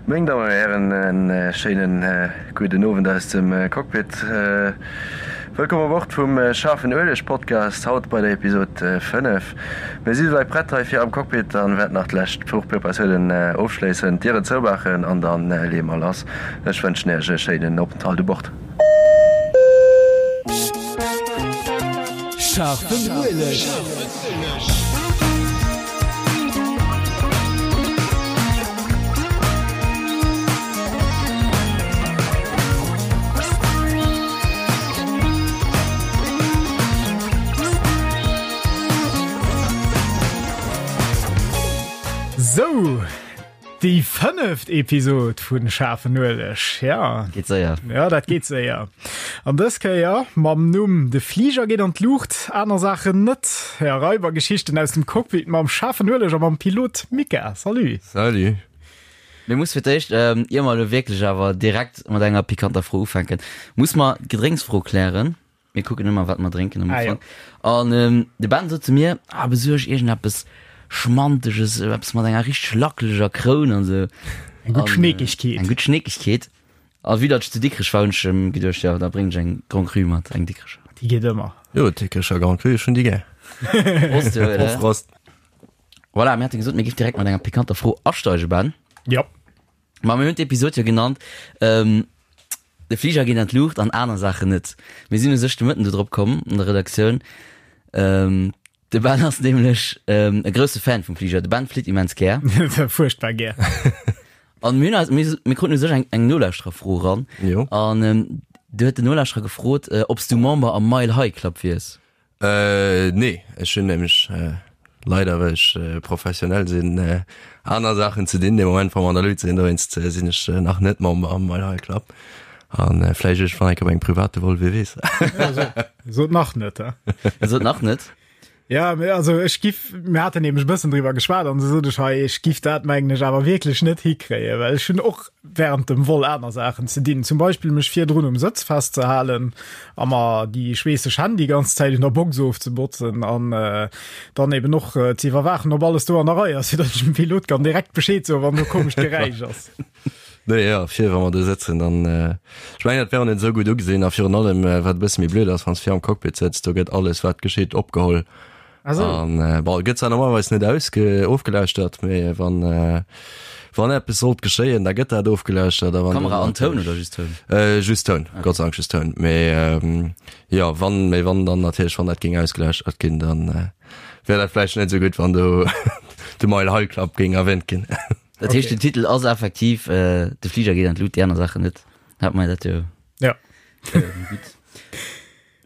Meng Dammen an Hären, en schéinen gudden Owend aus dem Cockpit. Wëllkomm u Bord vum Schaarfen Ueleg Podcast, haut bei der Episod 5. Mir si souwäit prett hei fir am Cockpit an wäerten nach d'lescht Fluchpreparatiounen ofschléissen, d'Dieren zoumaachen an dann leeë mer lass. Ech wënschen Iech e schéinen Openthalt u Bord. Scharfen Ueleg. Sou, déi fënneft Episod vun Schaarfen Ueleg. Ja. Geet séier. Ja, dat geet séier. An dës Kéier mam Numm De Fliger geet an d'Luucht, aner Saachen net. Ja, Raibergeschichten aus dem Cockpit mam Schaarfen Ueleg a mam Pilot Mika. Salut. Salut. Mir muss fir d'éischt, ähm, ier mer elo wierklech awer direkt mat enger pikanter Fro ufänken, muss mer d'Gedrénksfro klären. Mir kucken ëmmer, wat mer drénken am ah, Ufank. Ja. An ähm, de Ben sot zu mir, ah, besuerg iergendeppes Schmanteges, eppes mat enger richteg lackeleger Kroun an sou. Eng gutt Schneekegkeet. Eng gutt Schneekegkeet. A vue datt ech zu Dikrech war, hunn ech em geduecht, jo, da bréngen ech eng Grand Cru mat, eng Dikrecher. Déi geet ëmmer. Jo, Dikrecher Grand Cru, ech hunn déi gär. Prost, jo, Prost, Prost. Voilà, mir hate gesot, mir géif direkt mat enger pikanter Fro asteigen, Ben. Ja. Ma mir hunn d'Episod jo genannt, ähm, De Fliger geet an d'Luucht an aner Saachen net. Mir sinn u sech de Mëtten do drop komm an der Redaktioun. Ähm, de Ben ass nämlech ähm, e grousse Fan vum Fliger. De Ben flitt immens gär. Fuerchtbar gär. An mir hunn eis, mir, mir kruten u sech eng, eng Nolauschtererfro eran. Jo. An ähm, do huet den Nolauschterer gefrot, äh, ob s du Member am Mile High Club wiers. Äh, nee, ech hunn nämlech leider, well ech professionell sinn, aner Saachen ze dinn de Moment, wa mer an der Luut sinn. Dowéinst sinn ech nach net Member am Mile High Club. An vläicht iergendwann eng Kéier op engem private Vol, wie weess. Sot nach net, he? Sot nach net. Ja, mee also ech giff, mir haten nämlech e bëssen driwwer geschwat an du sot ech hei, ech giff dat mengen ech awer wierklech net hikréien, well ech hunn och während dem Vol aner Saachen ze dinn, zum Beispill mech virdrun um Sëtz festzehalen a mer déi schweesseg Hänn déi ganz Zäit un der Box ofzebotzen an dann eben och ze iwwerwaachen, ob alles do an der Rei ass, fir datt ech dem Pilot kann direkt Bescheed soen, wann do komescht Geräisch ass. Nee, jo, vir wa mer do sëtzen, dann, ech mengen, dat wär och net esou gutt ugesinn a virun allem, wat e bësse méi blöd ass, wann s de vir am Cockpit sëtz, do gëtt alles, wat geschitt, opgeholl. Ah sou. An, bon, et gëtt zwar normalerweis net ausge, ofgelauschtert, mee wann, wann eppes sollt geschéien, da gëtt dat ofgelauschtert a wann Kamera an Toun oder just Toun? Just Toun, Gott sei Dank just Toun, mee jo, wann, mee wann dann natierlech, wann dat géing ausgelauschtert ginn, dann wär dat vläicht net esou gutt, wann do de Mile High Club géing erwähnt ginn. Dat heescht, den Titel ass effektiv De Fliger geet an d'Lut, déi aner Saachen net. Hat mer dat jo. Ja. Gutt.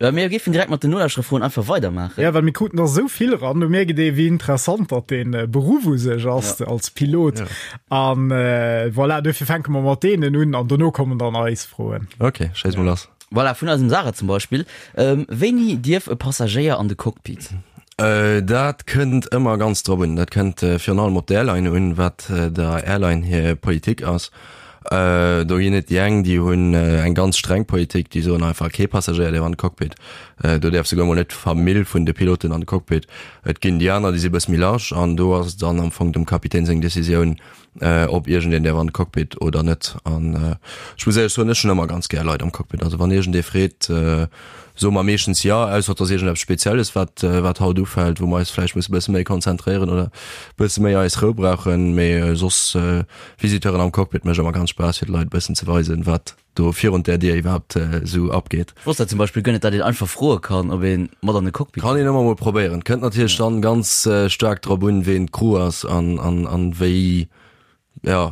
Mir géifen direkt mat den Nolauschtererfroen einfach weidermaachen. Ja, well mir kruten der esou vill eran, do mierkt ee wéi interessant datt dee Beruff u sech ass als Pilot. Ja. An voilà, duerfir fänke mer mat deenen un an dono kommen dann eis Froen. Okay, schéiss mol lass. Voilà, vun eisem Sarah zum Beispill. Wéini dierf e Passagéier an de Cockpit? Dat kënnt ëmmer ganz drop un. Dat kënnt virun allem op d'Airline un, wat der Airline hir Politik ass. Do ginn et déi eng, déi hunn eng ganz streng Politik, déi soen einfach, kee Passagéier däerf an de Cockpit. Do däerf souguer mol net d'Famill vun de Piloten an de Cockpit. Et ginn déi aner, déi si e bësse méi large an do ass et dann am Fong dem Kapitän seng Decisioun, ob iergendeen däerf an de Cockpit oder net. An ech muss éierlech soen, ech hunn ëmmer ganz gär Leit am Cockpit. Also wann iergendee freet, soe mer meeschtens jo, ausser et ass iergendeppes Spezielles, wat, wat haut ufält, wou mer eis vläicht musse bësse méi konzentréieren oder bësse méi eis Rou brauchen. Mee soss Visiteuren am Cockpit mécht ëmmer ganz Spaass, fir de Leit e bëssen ze weisen, wat do virun där Dier iwwerhaapt esou abgeet. Ech wosst dat zum Beispill guer net, dat een einfach froe kann, ob ee mat an de Cockpit Kann een ëmmer mol probéieren. Kënnt natierlech dann ganz staark drop un, ween d'Crew ass an an an wéi, jo,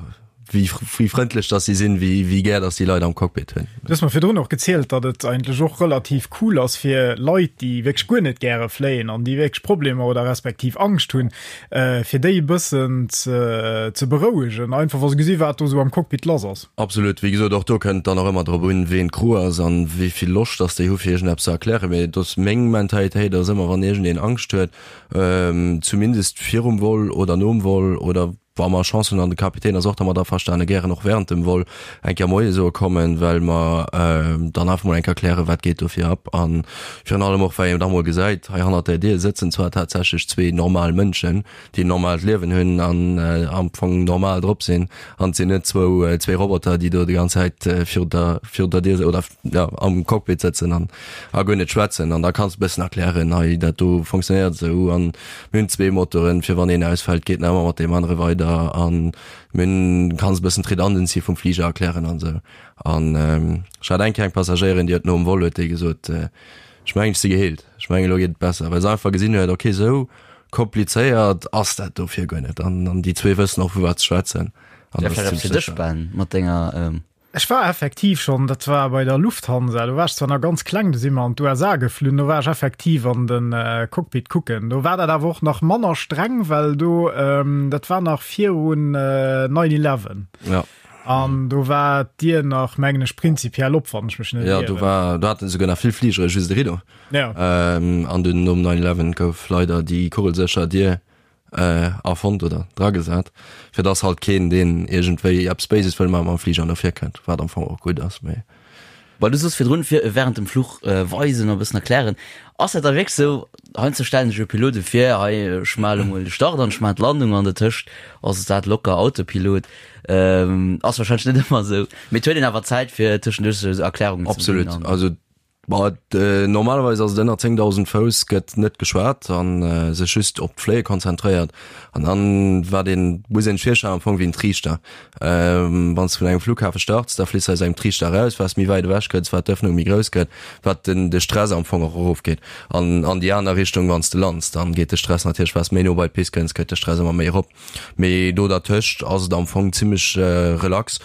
wéi wéi frëndlech dass si sinn, wéi wéi gär dass déi Leit am Cockpit hunn. Du hues mer virdrun och gezielt, datt et eigentlech och relativ cool ass fir Leit, déi wierklech guer net gäre fléien an déi wierklech Problemer oder respektiv Angscht hunn, fir déi e bëssen ze berouegen, einfach wa se gesi wat do esou am Cockpit lass ass. Absolut, wéi gesot, och do kënnt dann och ëmmer drop un, ween d'Crew ass an wéi vill Loscht dass déi hu fir iergendeppes ze erklären. Mee et ass meng Mentalitéit ass ëmmer, wann iergendeen Angscht huet, zumindest virum Vol oder nom Vol oder. Wa mer Chance hunn an de Kapitän ass och dermat averstane, gären och während dem Vol eng Kéier Moie soe kommen, well mer dann einfach mol eng Kéier klären, wat geet do fir ab. A virun allem och, well een da mol gesäit, hei hannert där Dier sëtzen zwar tatsächlech zwee normal Mënschen, déi en normaalt Liewen hunn an am Fong normal drop sinn, an et sinn net zwou, zwee Roboter, déi do déi ganz Zäit virun der, virun der Dier oder jo am Cockpit sëtzen an a guer net schwätzen. An da kanns de e bëssen erklären, hei dat do funktionéiert esou an mir hunn zwee Motoren, fir wann een ausfält, geet nach ëmmer mat deem anere weider an mir hunn, kanns e bëssen d'Redundancy vum Fliger erklären an esou. An ech hat eng Kéier eng Passagéierin, déi huet nom Vol huet déi gesot, ech mengen ech si geheelt, ech mengen elo geet et besser, well se einfach gesinn huet, okay esou komplizéiert ass dat dofir guer net an an déi zwee wëssen och vu wat se schwätzen. An dat ass zimmlech sécher. Ben, mat denger ähm Ech war effektiv schonn, dat war bei der Lufthansa, do war ech zwar nach ganz kleng, do si mer an d'USA geflunn, do war ech effektiv an de Cockpit kucken. Do war dat awer och nach manner streng, well do, dat war nach virun 9 eleven. Ja. An do war d'Dier nach, mengen ech, prinzipiell op, wann ech mech net Ja, ieren. do war, do haten esouguer nach vill Fligere just e Rideau. Ja. An dunn nom 9 eleven gouf leider déi kugelsécher Dier erfonnt oder dragesat, fir dass halt keen, deen iergendwéi eppes Béises wëll maachen, mam Fliger no vir kënnt, wat am Fong och gutt ass, mee. Well du soos virdrun, fir während dem Fluch weisen a bëssen erklären. Ass dat da wierklech sou? Heiansdo stellen sech jo Pilote vir, hei ech maache lo mol de Start an ech maachen d'Landung an dertëscht ass dat locker Autopilot. Ass wahrscheinlech net ëmmer sou, mee et huet een awer Zäit fir tëschenduerch sou Erklärungen ze ginn. Absolut, also Bon, normalerweis ass et ënner 10.000 Fouss gëtt net geschwat an sech just op d'Fléie konzentréiert. An dann wat een, muss een sech virstellen am Fong wéi en Triichter. Wann s de vun engem Flughafe starts, da fliss de aus engem Triichter eraus. Wat s méi wäit ewech kënns, wat d'Ëffnung méi grouss gëtt, wat den de Stress am Fong och erofgeet. An an déi aner Richtung, wann s de lands, dann geet de Stress natierlech, wat s méi no bei d'Pist kënns, gëtt de Stress ëmmer méi erop. Mee do dertëscht ass et am Fong zimmlech relax.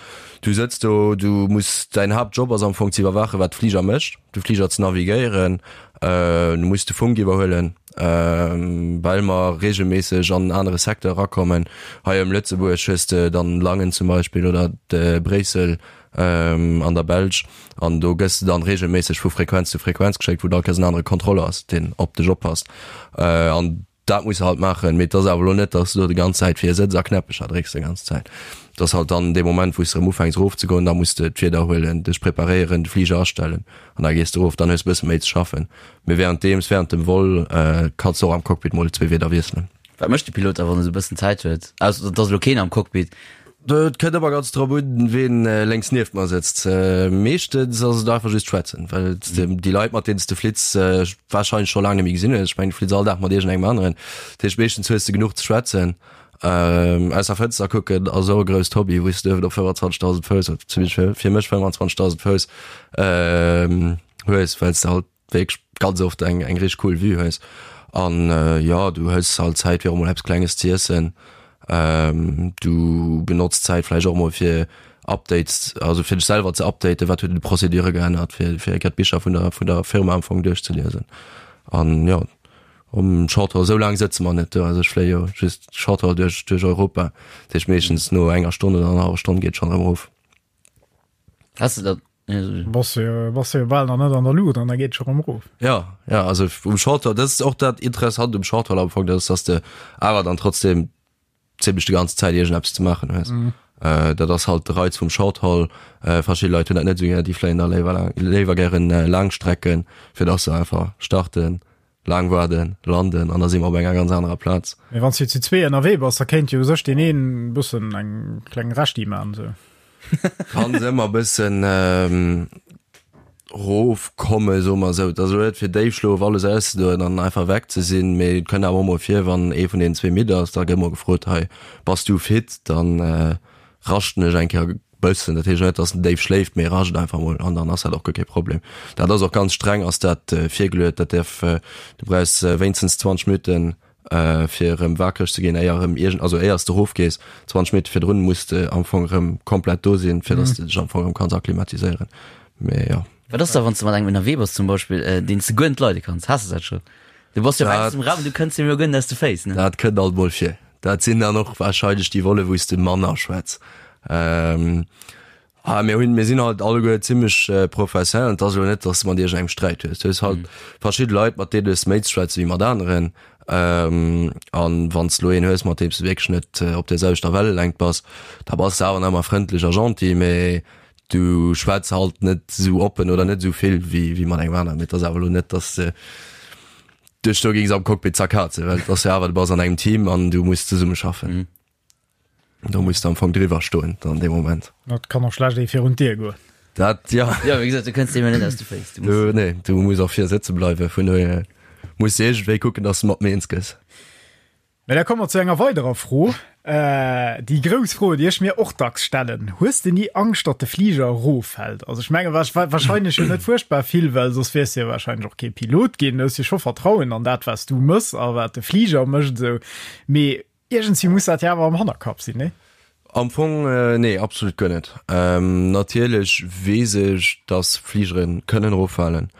Du sëtz do, du muss, däin Haaptjob ass am Fong ze iwwerwaachen, wat de Fliger mécht, de Fliger ze navigéieren, du muss de Funk iwwerhuelen, well mer reegelméisseg an en anere Secteur erakommen. Hei ëm Lëtzebuerg hues de dann Langen zum Beispill oder Bréissel an der Belsch an do gëss de dann reegelméisseg vu Frequenz zu Frequenz geschéckt, wou da all Kéiers en anere Kontroller ass, deen op dech oppasst. An Dat muss se halt maachen, mee et ass awer elo net, dass du do déi ganz Zäit vir sëtz a Knäppecher drécks déi ganz Zäit. Et ass halt dann dee Moment, wou s de erëm ufänks erofzegoen, da muss de d'Wieder huelen, dech preparéieren, de Fliger astellen an da gees de erof. Dann hues de e bësse méi ze schaffen. Mee wärenddeems, wärend dem Vol, kanns de och am Cockpit mol zwee Wieder wiesselen. Wat mécht de Pilot da, wann e sou e bëssen Zäit huet? Ausser et ass elo keen am Cockpit. Et kënnt ëmmer ganz drop un, ween lénks nieft mer sëtzt. Meeschtens ass et einfach just schwätzen, well déi Leit, mat deenen s de flitts, warscheinlech scho laang net méi gesinn hues. Ech mengen, du flitts all Dag mat iergendengem aneren. Dat heescht, meeschtens hues de genuch ze schwätzen. Aus der Fënster kucken ass och e grousst Hobby, wou s de uewen op 25.000 Fouss, zumindest fir mech 25.000 Fouss, hues, well s de halt wierklech ganz oft eng eng richteg cool Vue hues an jo du hues halt Zäit fir och mol eppes klenges ze iessen, du benotz d'Zäit vläicht och mol fir Updates, also fir dech selwer ze updaten, wat huet un de Procédure geännert, fir fir eng Kéier d'Bicher vun der vun der Firma am Fong duerchzeliesen an jo um Shorthaul esou laang sëtze mer net do, also ech fléie jo just Shorthaul duerch duerch Europa, dat heescht meeschtens no enger Stonn oder annerhallwer Stonn geet schonn erëm erof. Has de dat Bass jo, bass jo bal nach net an der Luucht an da geet scho rëm erof. Ja, ja, also um Shorthaul, dat ass och dat Interessant um Shorthaul am Fong, dat ass, dass de awer dann trotzdem zimmlech déi ganz Zäit iergendeppes ze maachen hues. Mm. Äh, dat ass halt de Reiz vum Shorthaul. Äh, verschidde Leit hunn dat net esou gär, déi fléien da léiwer laang, léiwer gären äh, Laangstrecken, fir dass se einfach starten, laang waarden, landen an da si mer op enger ganz anerer Plaz. Mee wann s du zu zwee ënnerwee bass, da kéint jo u sech deen een e bëssen eng kleng Rechti man sou. Kann se ëmmer e bëssen rofkomme soe mer esou. Et ass elo net fir Déifschlof alles auszedoen an einfach weg ze sinn, mee et kënnt awer och mol vir, wann ee vun deenen zwee midd ass, da gëtt mol gefrot, hei bass du fit, dann raschten ech eng Kéier bëssen. Dat heescht net, datt en déif schléift, mee rascht einfach mol an dann ass dat och guer kee Problem. Dat ass och ganz streng ass dat virgeluet, dat däerf, du brauchs wéinstens 20 Minutten fir erëm wakereg ze ginn, éier erëm iergend, also éiers de erofgees, 20 Minutte virdrun muss de am Fong erëm komplett do sinn, fir datt de dech am Fong erëm kanns akklimatiséieren. Mee jo. Wat ass da wann s de mat engem ënnerwee bass zum Beispill, deen s de guer net leide kanns? Has de dat scho? Du bass jo op engstem Raum, du kënns him jo guer net aus de Féiss, ne? Dat kënnt alt mol vir. Dat sinn dann och warscheinlech déi Volle wou s de manner schwätz. Ah, mir hunn, mir sinn halt alleguer zimmlech professionell. Et ass elo net, datt s de mat iergendengem Sträit hues. Du hues halt verschidde Leit, mat deene hues de méi ze schwätze wéi mat aneren. An wann s de elo een hues, mat deem s de wierklech net op der selwechter Wellelängt bass, da bass de awer nach ëmmer frëndlech a gentil, mee du schwätz halt net esou oppen oder net esou vill wéi wéi mat engem aneren. Mee et ass awer elo net, dass de dech do géings am Cockpit zerkazen, well et ass jo awer, du bass an engem Team an du muss zesummeschaffen. Do muss du am Fong driwwer stoen dann dee Moment. Dat kann och schlecht ee virun d'Dier goen. Dat ja. Ja, wéi gesot, du kënns deem jo net aus de Féiss. Du muss. Du, nee, du muss och vir sëtze bleiwen, vun dohier muss de iergendwéi kucken, dass de mat mir eens gëss. Mä da komme mer zu enger weiderer Fro, déi grouss Fro, déi ech mir och dacks stellen, Hues de ni Angscht, datt de Fliger eroffält? Also ech menge wahrscheinlech jo net fuerchtbar vill, well soss wiers de jo wahrscheinlech och kee Pilot ginn. Du hues jo scho Vertrauen an dat, wat s du mëss a wat de Fliger mécht esou. Mee Iergendswéi muss dat jo awer am Hannerkapp sinn, nee? Am Fong, nee, absolut guer net. Natierlech weess ech, dass Fligere kënnen eroffalen.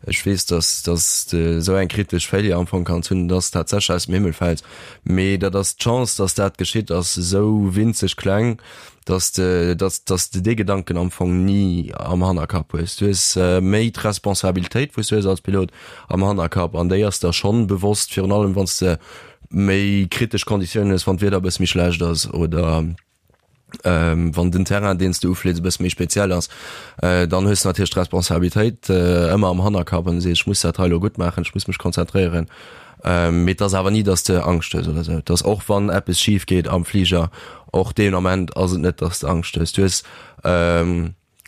Ech weess, dass dass de esou eng kritesch Failure am Fong kanns hunn, dass tatsächlech aus dem Himmel fält. Mee dat ass, d'Chance, dass dat geschitt, ass esou winzeg kleng, dass de dass dass de dee Gedanken am Fong ni am Hannerkapp hues. Du hues méi d'Responsabilitéit, wou s du hues als Pilot am Hannerkapp an déi ass der schonn bewosst, virun allem wann s de méi kritesch Konditiounen hues, wann d'Wieder e bësse méi schlecht ass oder wann den Terrain, deen s de uflees, e bësse méi speziell ass, dann hues de natierlech d'Responsabilitéit ëmmer am Hannerkapp an du sees, ech muss dat hei elo gutt maachen, ech muss mech konzentréieren. Mee et ass awer ni, datt s de Angscht hues oder esou. Et ass och wann eppes schif geet am Fliger, och deen Ament ass et net, datt s de Angscht hues. Du hues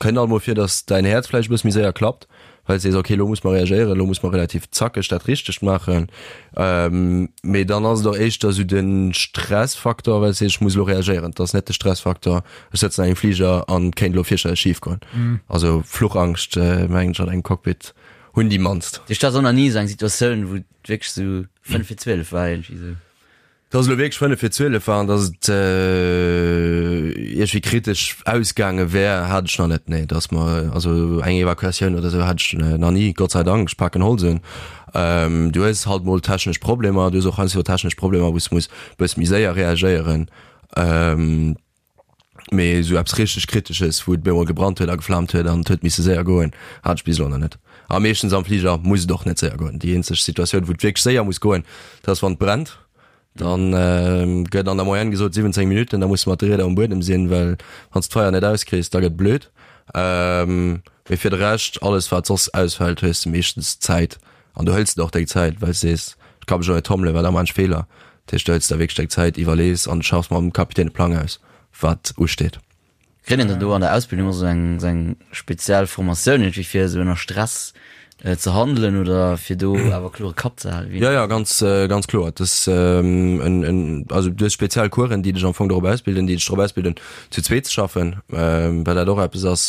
Kënnt alt mol vir, dass däin Häerz vläicht e bësse méi séier klappt, well s de sees, ok, elo muss mer reagéieren, elo muss mer relativ zackeg dat Richtegt maachen. Mee dann ass et och éischter esou de Stressfaktor, well s de sees, ech muss elo reagéieren. Et ass net de Stressfaktor, ech sëtzen an engem Fliger an et kéint elo fierchterlech schif goen. Also Fluchangscht, mengen ech, an engem Cockpit hunn déi mannst. Duerch dat ass och nach ni esou eng Situatioun, wou et wierklech esou 5 vir 12 war iergendwéi esou. Dass et elo wierklech 5 vir 12 war an dass et iergendwéi kritesch ausgaange wär, hat ech nach net. Nee, dass mer, also eng Evakuatioun oder esou hat ech nach ni, Gott sei Dank, ech paken Holz un. Du hues halt mol technesch Problemer, du hues och heiansdo technesch Problemer, wou s de muss e bësse méi séier reagéieren. Mee esou eppes richteg Kritesches, wou et bemol gebrannt huet a geflaamt huet an et huet misse séier goen, hat ech bis elo nach net. A meeschtens am Fliger muss et och net séier goen. Déi eenzeg Situatioun, wou et wierklech séier muss goen, dat ass wann et brennt. Dann gëtt an der Moyenne gesot 17 Minutten, da muss de mat de Rieder um Buedem sinn, well wann s d'Feier net auskriss, da gëtt blöd. Mee fir de Rescht, alles wat soss ausfält, hues de meeschtens Zäit An du hëls der och deng Zäit, well s de sees, ech ka mech elo net tommelen, well da maan ech Feeler. Dat heescht, du hëls der wierklech deng Zäit, iwwerlees an schaffs mam Kapitän e Plang aus, wat usteet. Kritt een dann do an der Ausbildung och esou eng, esou eng speziell Formatioun iergendwéi fir esou ënner Stress ze handelen oder fir do awer klore Kapp ze halen? Jo, jo, ganz, ganz kloer. Et ass en, en, also du hues speziell Coursen, déi dech am Fong dorop ausbilden, déi dech dorop ausbilden, zu zweet ze schaffen, well dat och eppes ass,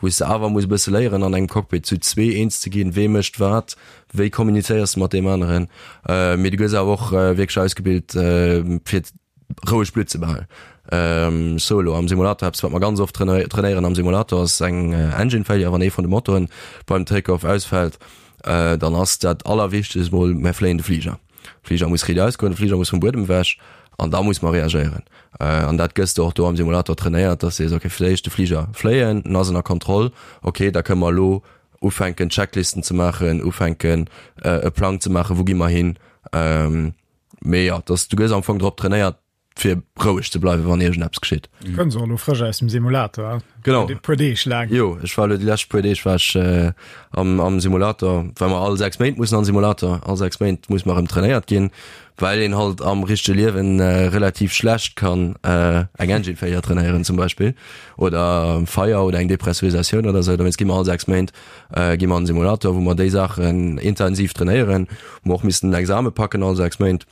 wou s de awer muss e bësse léieren an engem Cockpit zu zwee eens ze ginn, wee mécht wat, wéi kommunizéiers de mat deem aneren. Mee du gëss awer och wierklech ausgebilt fir roueg Blutt ze behalen. Solo am Simulator, eppes wat mer ganz oft trainéieren am Simulator ass eng Engine Failure, wann ee vun de Motoren beim Take-off ausfält, dann ass dat allerwichtegst mol, mer fléien de Fliger. Fliger muss riit ausgoen, de Fliger muss vum Buedem ewech an da muss mer reagéieren. An dat gëss de och do am Simulator trainéiert, dass de sees, okay, fir d'éischt de Fliger fléien, en ass ënner Kontroll, okay, da kënne mer elo ufänken Checklisten ze maachen, ufänken e Plang ze maachen, wou gi mer hin. Mee jo, dass du gëss am Fong drop trainéiert, fir roueg ze bleiwen, wann iergendeppes geschitt. Kënns och elo frësch aus dem Simulator, Genau. E puer Deeg laang. Jo, ech war elo déi lescht puer Deeg war ech äh, am, am Simulator, well mer all 6 Méint mussen an Simulator, all 6 Méint muss mer erëm trainéiert ginn, well een halt am richtege Liewen äh, relativ schlecht kann äh, eng Engine Failure trainéieren zum Beispill oder Feier oder eng Depressurisatioun oder sou. Dowéinst gi mer all 6 Méint äh, gi mer an Simulator, wou mer déi Saachen intensiv trainéieren, wou mer och missen den Exame packen all 6 Méint.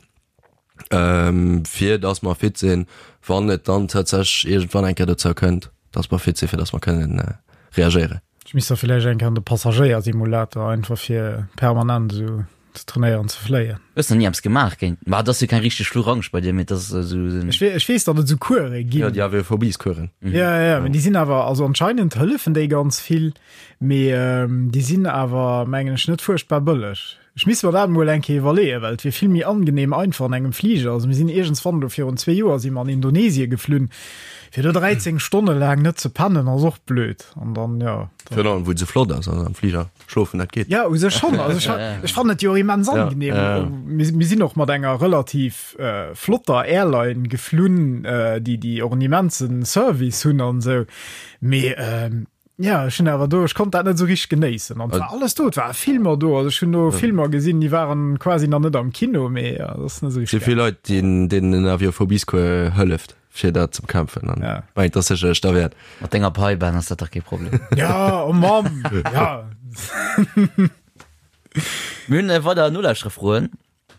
ähm, fir dass mer fit sinn, wann et dann tatsächlech iergendwann eng Kéier dozou kënnt, dass mer fit sinn, fir dass mer kënnen äh, reagéieren. Ech misst da villäicht eng Kéier an de Passagéiersimulator, einfach fir permanent esou ze trainéieren ze fléien. Hues nach ni eppes gemaach géint, ma et ass jo keng richteg Fluchangscht bei dir, mee et ass esou en. Ech weess, ech weess, datt et esou Course ginn. Jo, déi Aviophobiescoursen. Ja, ja, ja, mee déi sinn awer, also anscheinend hëllefen déi ganz vill, mee ähm, déi sinn awer, mengen ech, net fuerchtbar bëlleg. Ech misst mer dat emol eng Kéier iwwerleeën, well et wier vill méi angenehm einfach an engem Fliger. Also mir sinn iergendswann elo virun zwee Joer si mer an Indonesie geflunn, fir do 13 Stonne laang net ze pennen ass och blöd. An dann, jo. Virun allem wou et esou flott ass, also am Fliger schlofen, dat geet. Jo, u sech schonn. Also ech, ech fannen et jo och immens angenehm. Mir, mir sinn och mat enger relativ flotter Airline geflunn, déi, déi och en immense Service hunn an esou. Mee Ja, ech hunn awer do, ech konnt dat net esou richteg genéissen. An et war alles do, et ware Filmer do. Also ech hunn do Filmer gesinn, déi waren quasi nach net am Kino, mee ja, dat ass net esou Si richteg vill Leit, deenen den Aviophobiescours hëlleft, fir dat ze bekämpfen. An Ja. mengt, dat ass sécherlech derwäert. Mat denger Pai, Ben, ass dat dach kee Problem. Ja, oh Mamm, ja. Mir hunn weider Nolauschtererfroen.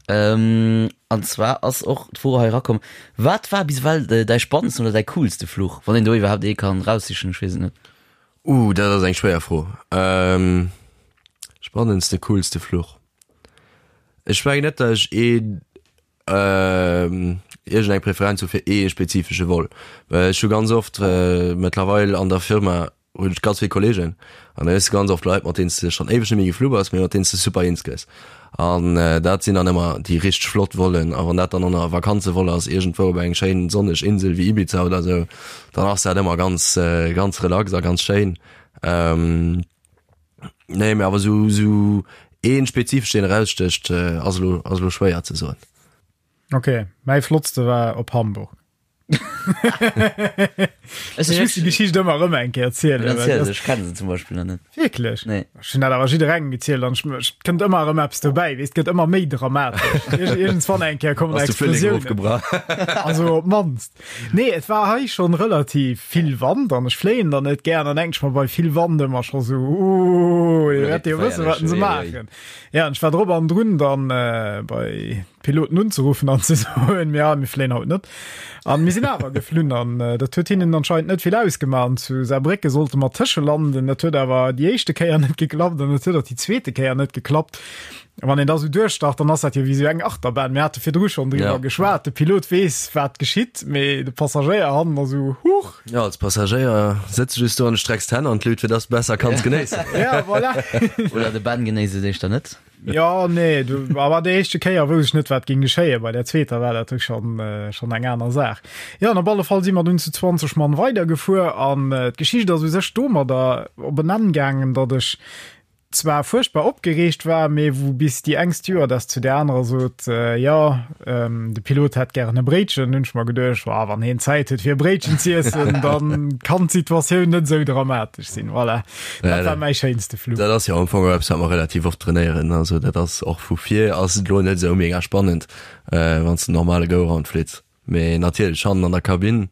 An zwar ass och d'Fro hei erakomm, Wat war bis ewell däi spannendsten oder däi coolste Fluch? Wann een do iwwerhaapt ee kann eraussichen, ech weess et net. Uh, dat ass eng schwéier Fro. Spannendste, coolste Fluch? Ech mengen net, datt ech een, iergendeng Preferenz hu fir ee spezifesche Vol. Well ech hu ganz oft mëttlerweil an der Firma hunn ech ganz vill Kollegen an da hues de ganz oft Leit, mat deenen s de schonn éiweg net méi geflu bass, mee mat deenen s de super eens gëss. An dat sinn dann ëmmer déi richteg flott Vollen. A wann dat dann och nach e Vakanzevol ass, iergendwou op eng schéin sonneg Insel wéi Ibiza oder esou, dann ass dat ëmmer ganz, ganz relax a ganz schéin. Nee, mee awer esou, esou ee spezifesch, deen erausstécht, ass elo, ass elo schwéier ze soen. Ok, mäi flottste war op Hamburg. Ech muss die Geschicht ëmmer rëm eng Kéier erzielen. Well Erziel se, ech kenne se zum Beispill nach net. Wierklech? Nee. Ech hunn dat awer jidderengem gezielt an ech kënnt ëmmer erëm eppes dobäi, weess, et gëtt ëmmer méi dramatesch. Iergendswann eng Kéier kommen Ass de Frühling Explosiounen. ofgebrach. Also op d'mannst. Nee, et war hei schonn relativ vill Wand an ech fléien dann net gär an dann denken ech mer bei vill Wand ëmmer scho sou, Ooh, déi wäerte jo wëssen, wat se maachen. Ja, an ech war drop an drun dann bei d'Piloten unzeruffen an ze soen, ja, mir fléien haut net. An mir sinn awer geflunn an äh, dat huet hinnen anscheinend net vill ausgemaach. An zu Saarbrécke sollte mer tëschelanden. Dat huet awer déi éischte Kéier net geklappt an et huet och déi zweete Kéier net geklappt. Wann een da sou duerchstart, dann ass dat jo wéi sou eng Achterbahn. Mir hate virdru schonn driwwer Ja. geschwat. De Pilot weess, wat geschitt, mee de Passagéier hannen ass sou, huch. Ja, als Passagéier sëtz de just do an strecks d'Hänn an d'Lut, fir dass de besser kanns genéissen. Ja, voilà. Oder de Ben genéisst et éischter net. Ja nee du, awer déi éischte Kéier wousst ech net wat ging geschéie, bei der zweeter war dat schon äh, schon eng aner Saach. Ja an op alle Fall si mer dunn zu 20 Mann weidergefuer an äh, d'Geschicht ass u sech domadder op en Enn gaangen, datt ech zwar fuerchtbar opgereegt war, mee wou bis déi eng Stewardess zu der anerer sot, äh, ja ähm, de Pilot hätt gären e Bréitchen, hunn ech mer geduecht, wa wann heen Zäit huet fir e Bréitchen z'iessen, dann kann d'Situatioun net esou dramatesch sinn. Voilà. Dat war mäi schéinste Flug. Dat ass jo am Fong och eppes, wat mer relativ oft trainéieren. Also dat ass och vu vir ass et elo net esou mega spannend, wann s de normale Go-Round flitts. Mee natierlech hannen an der Kabinn,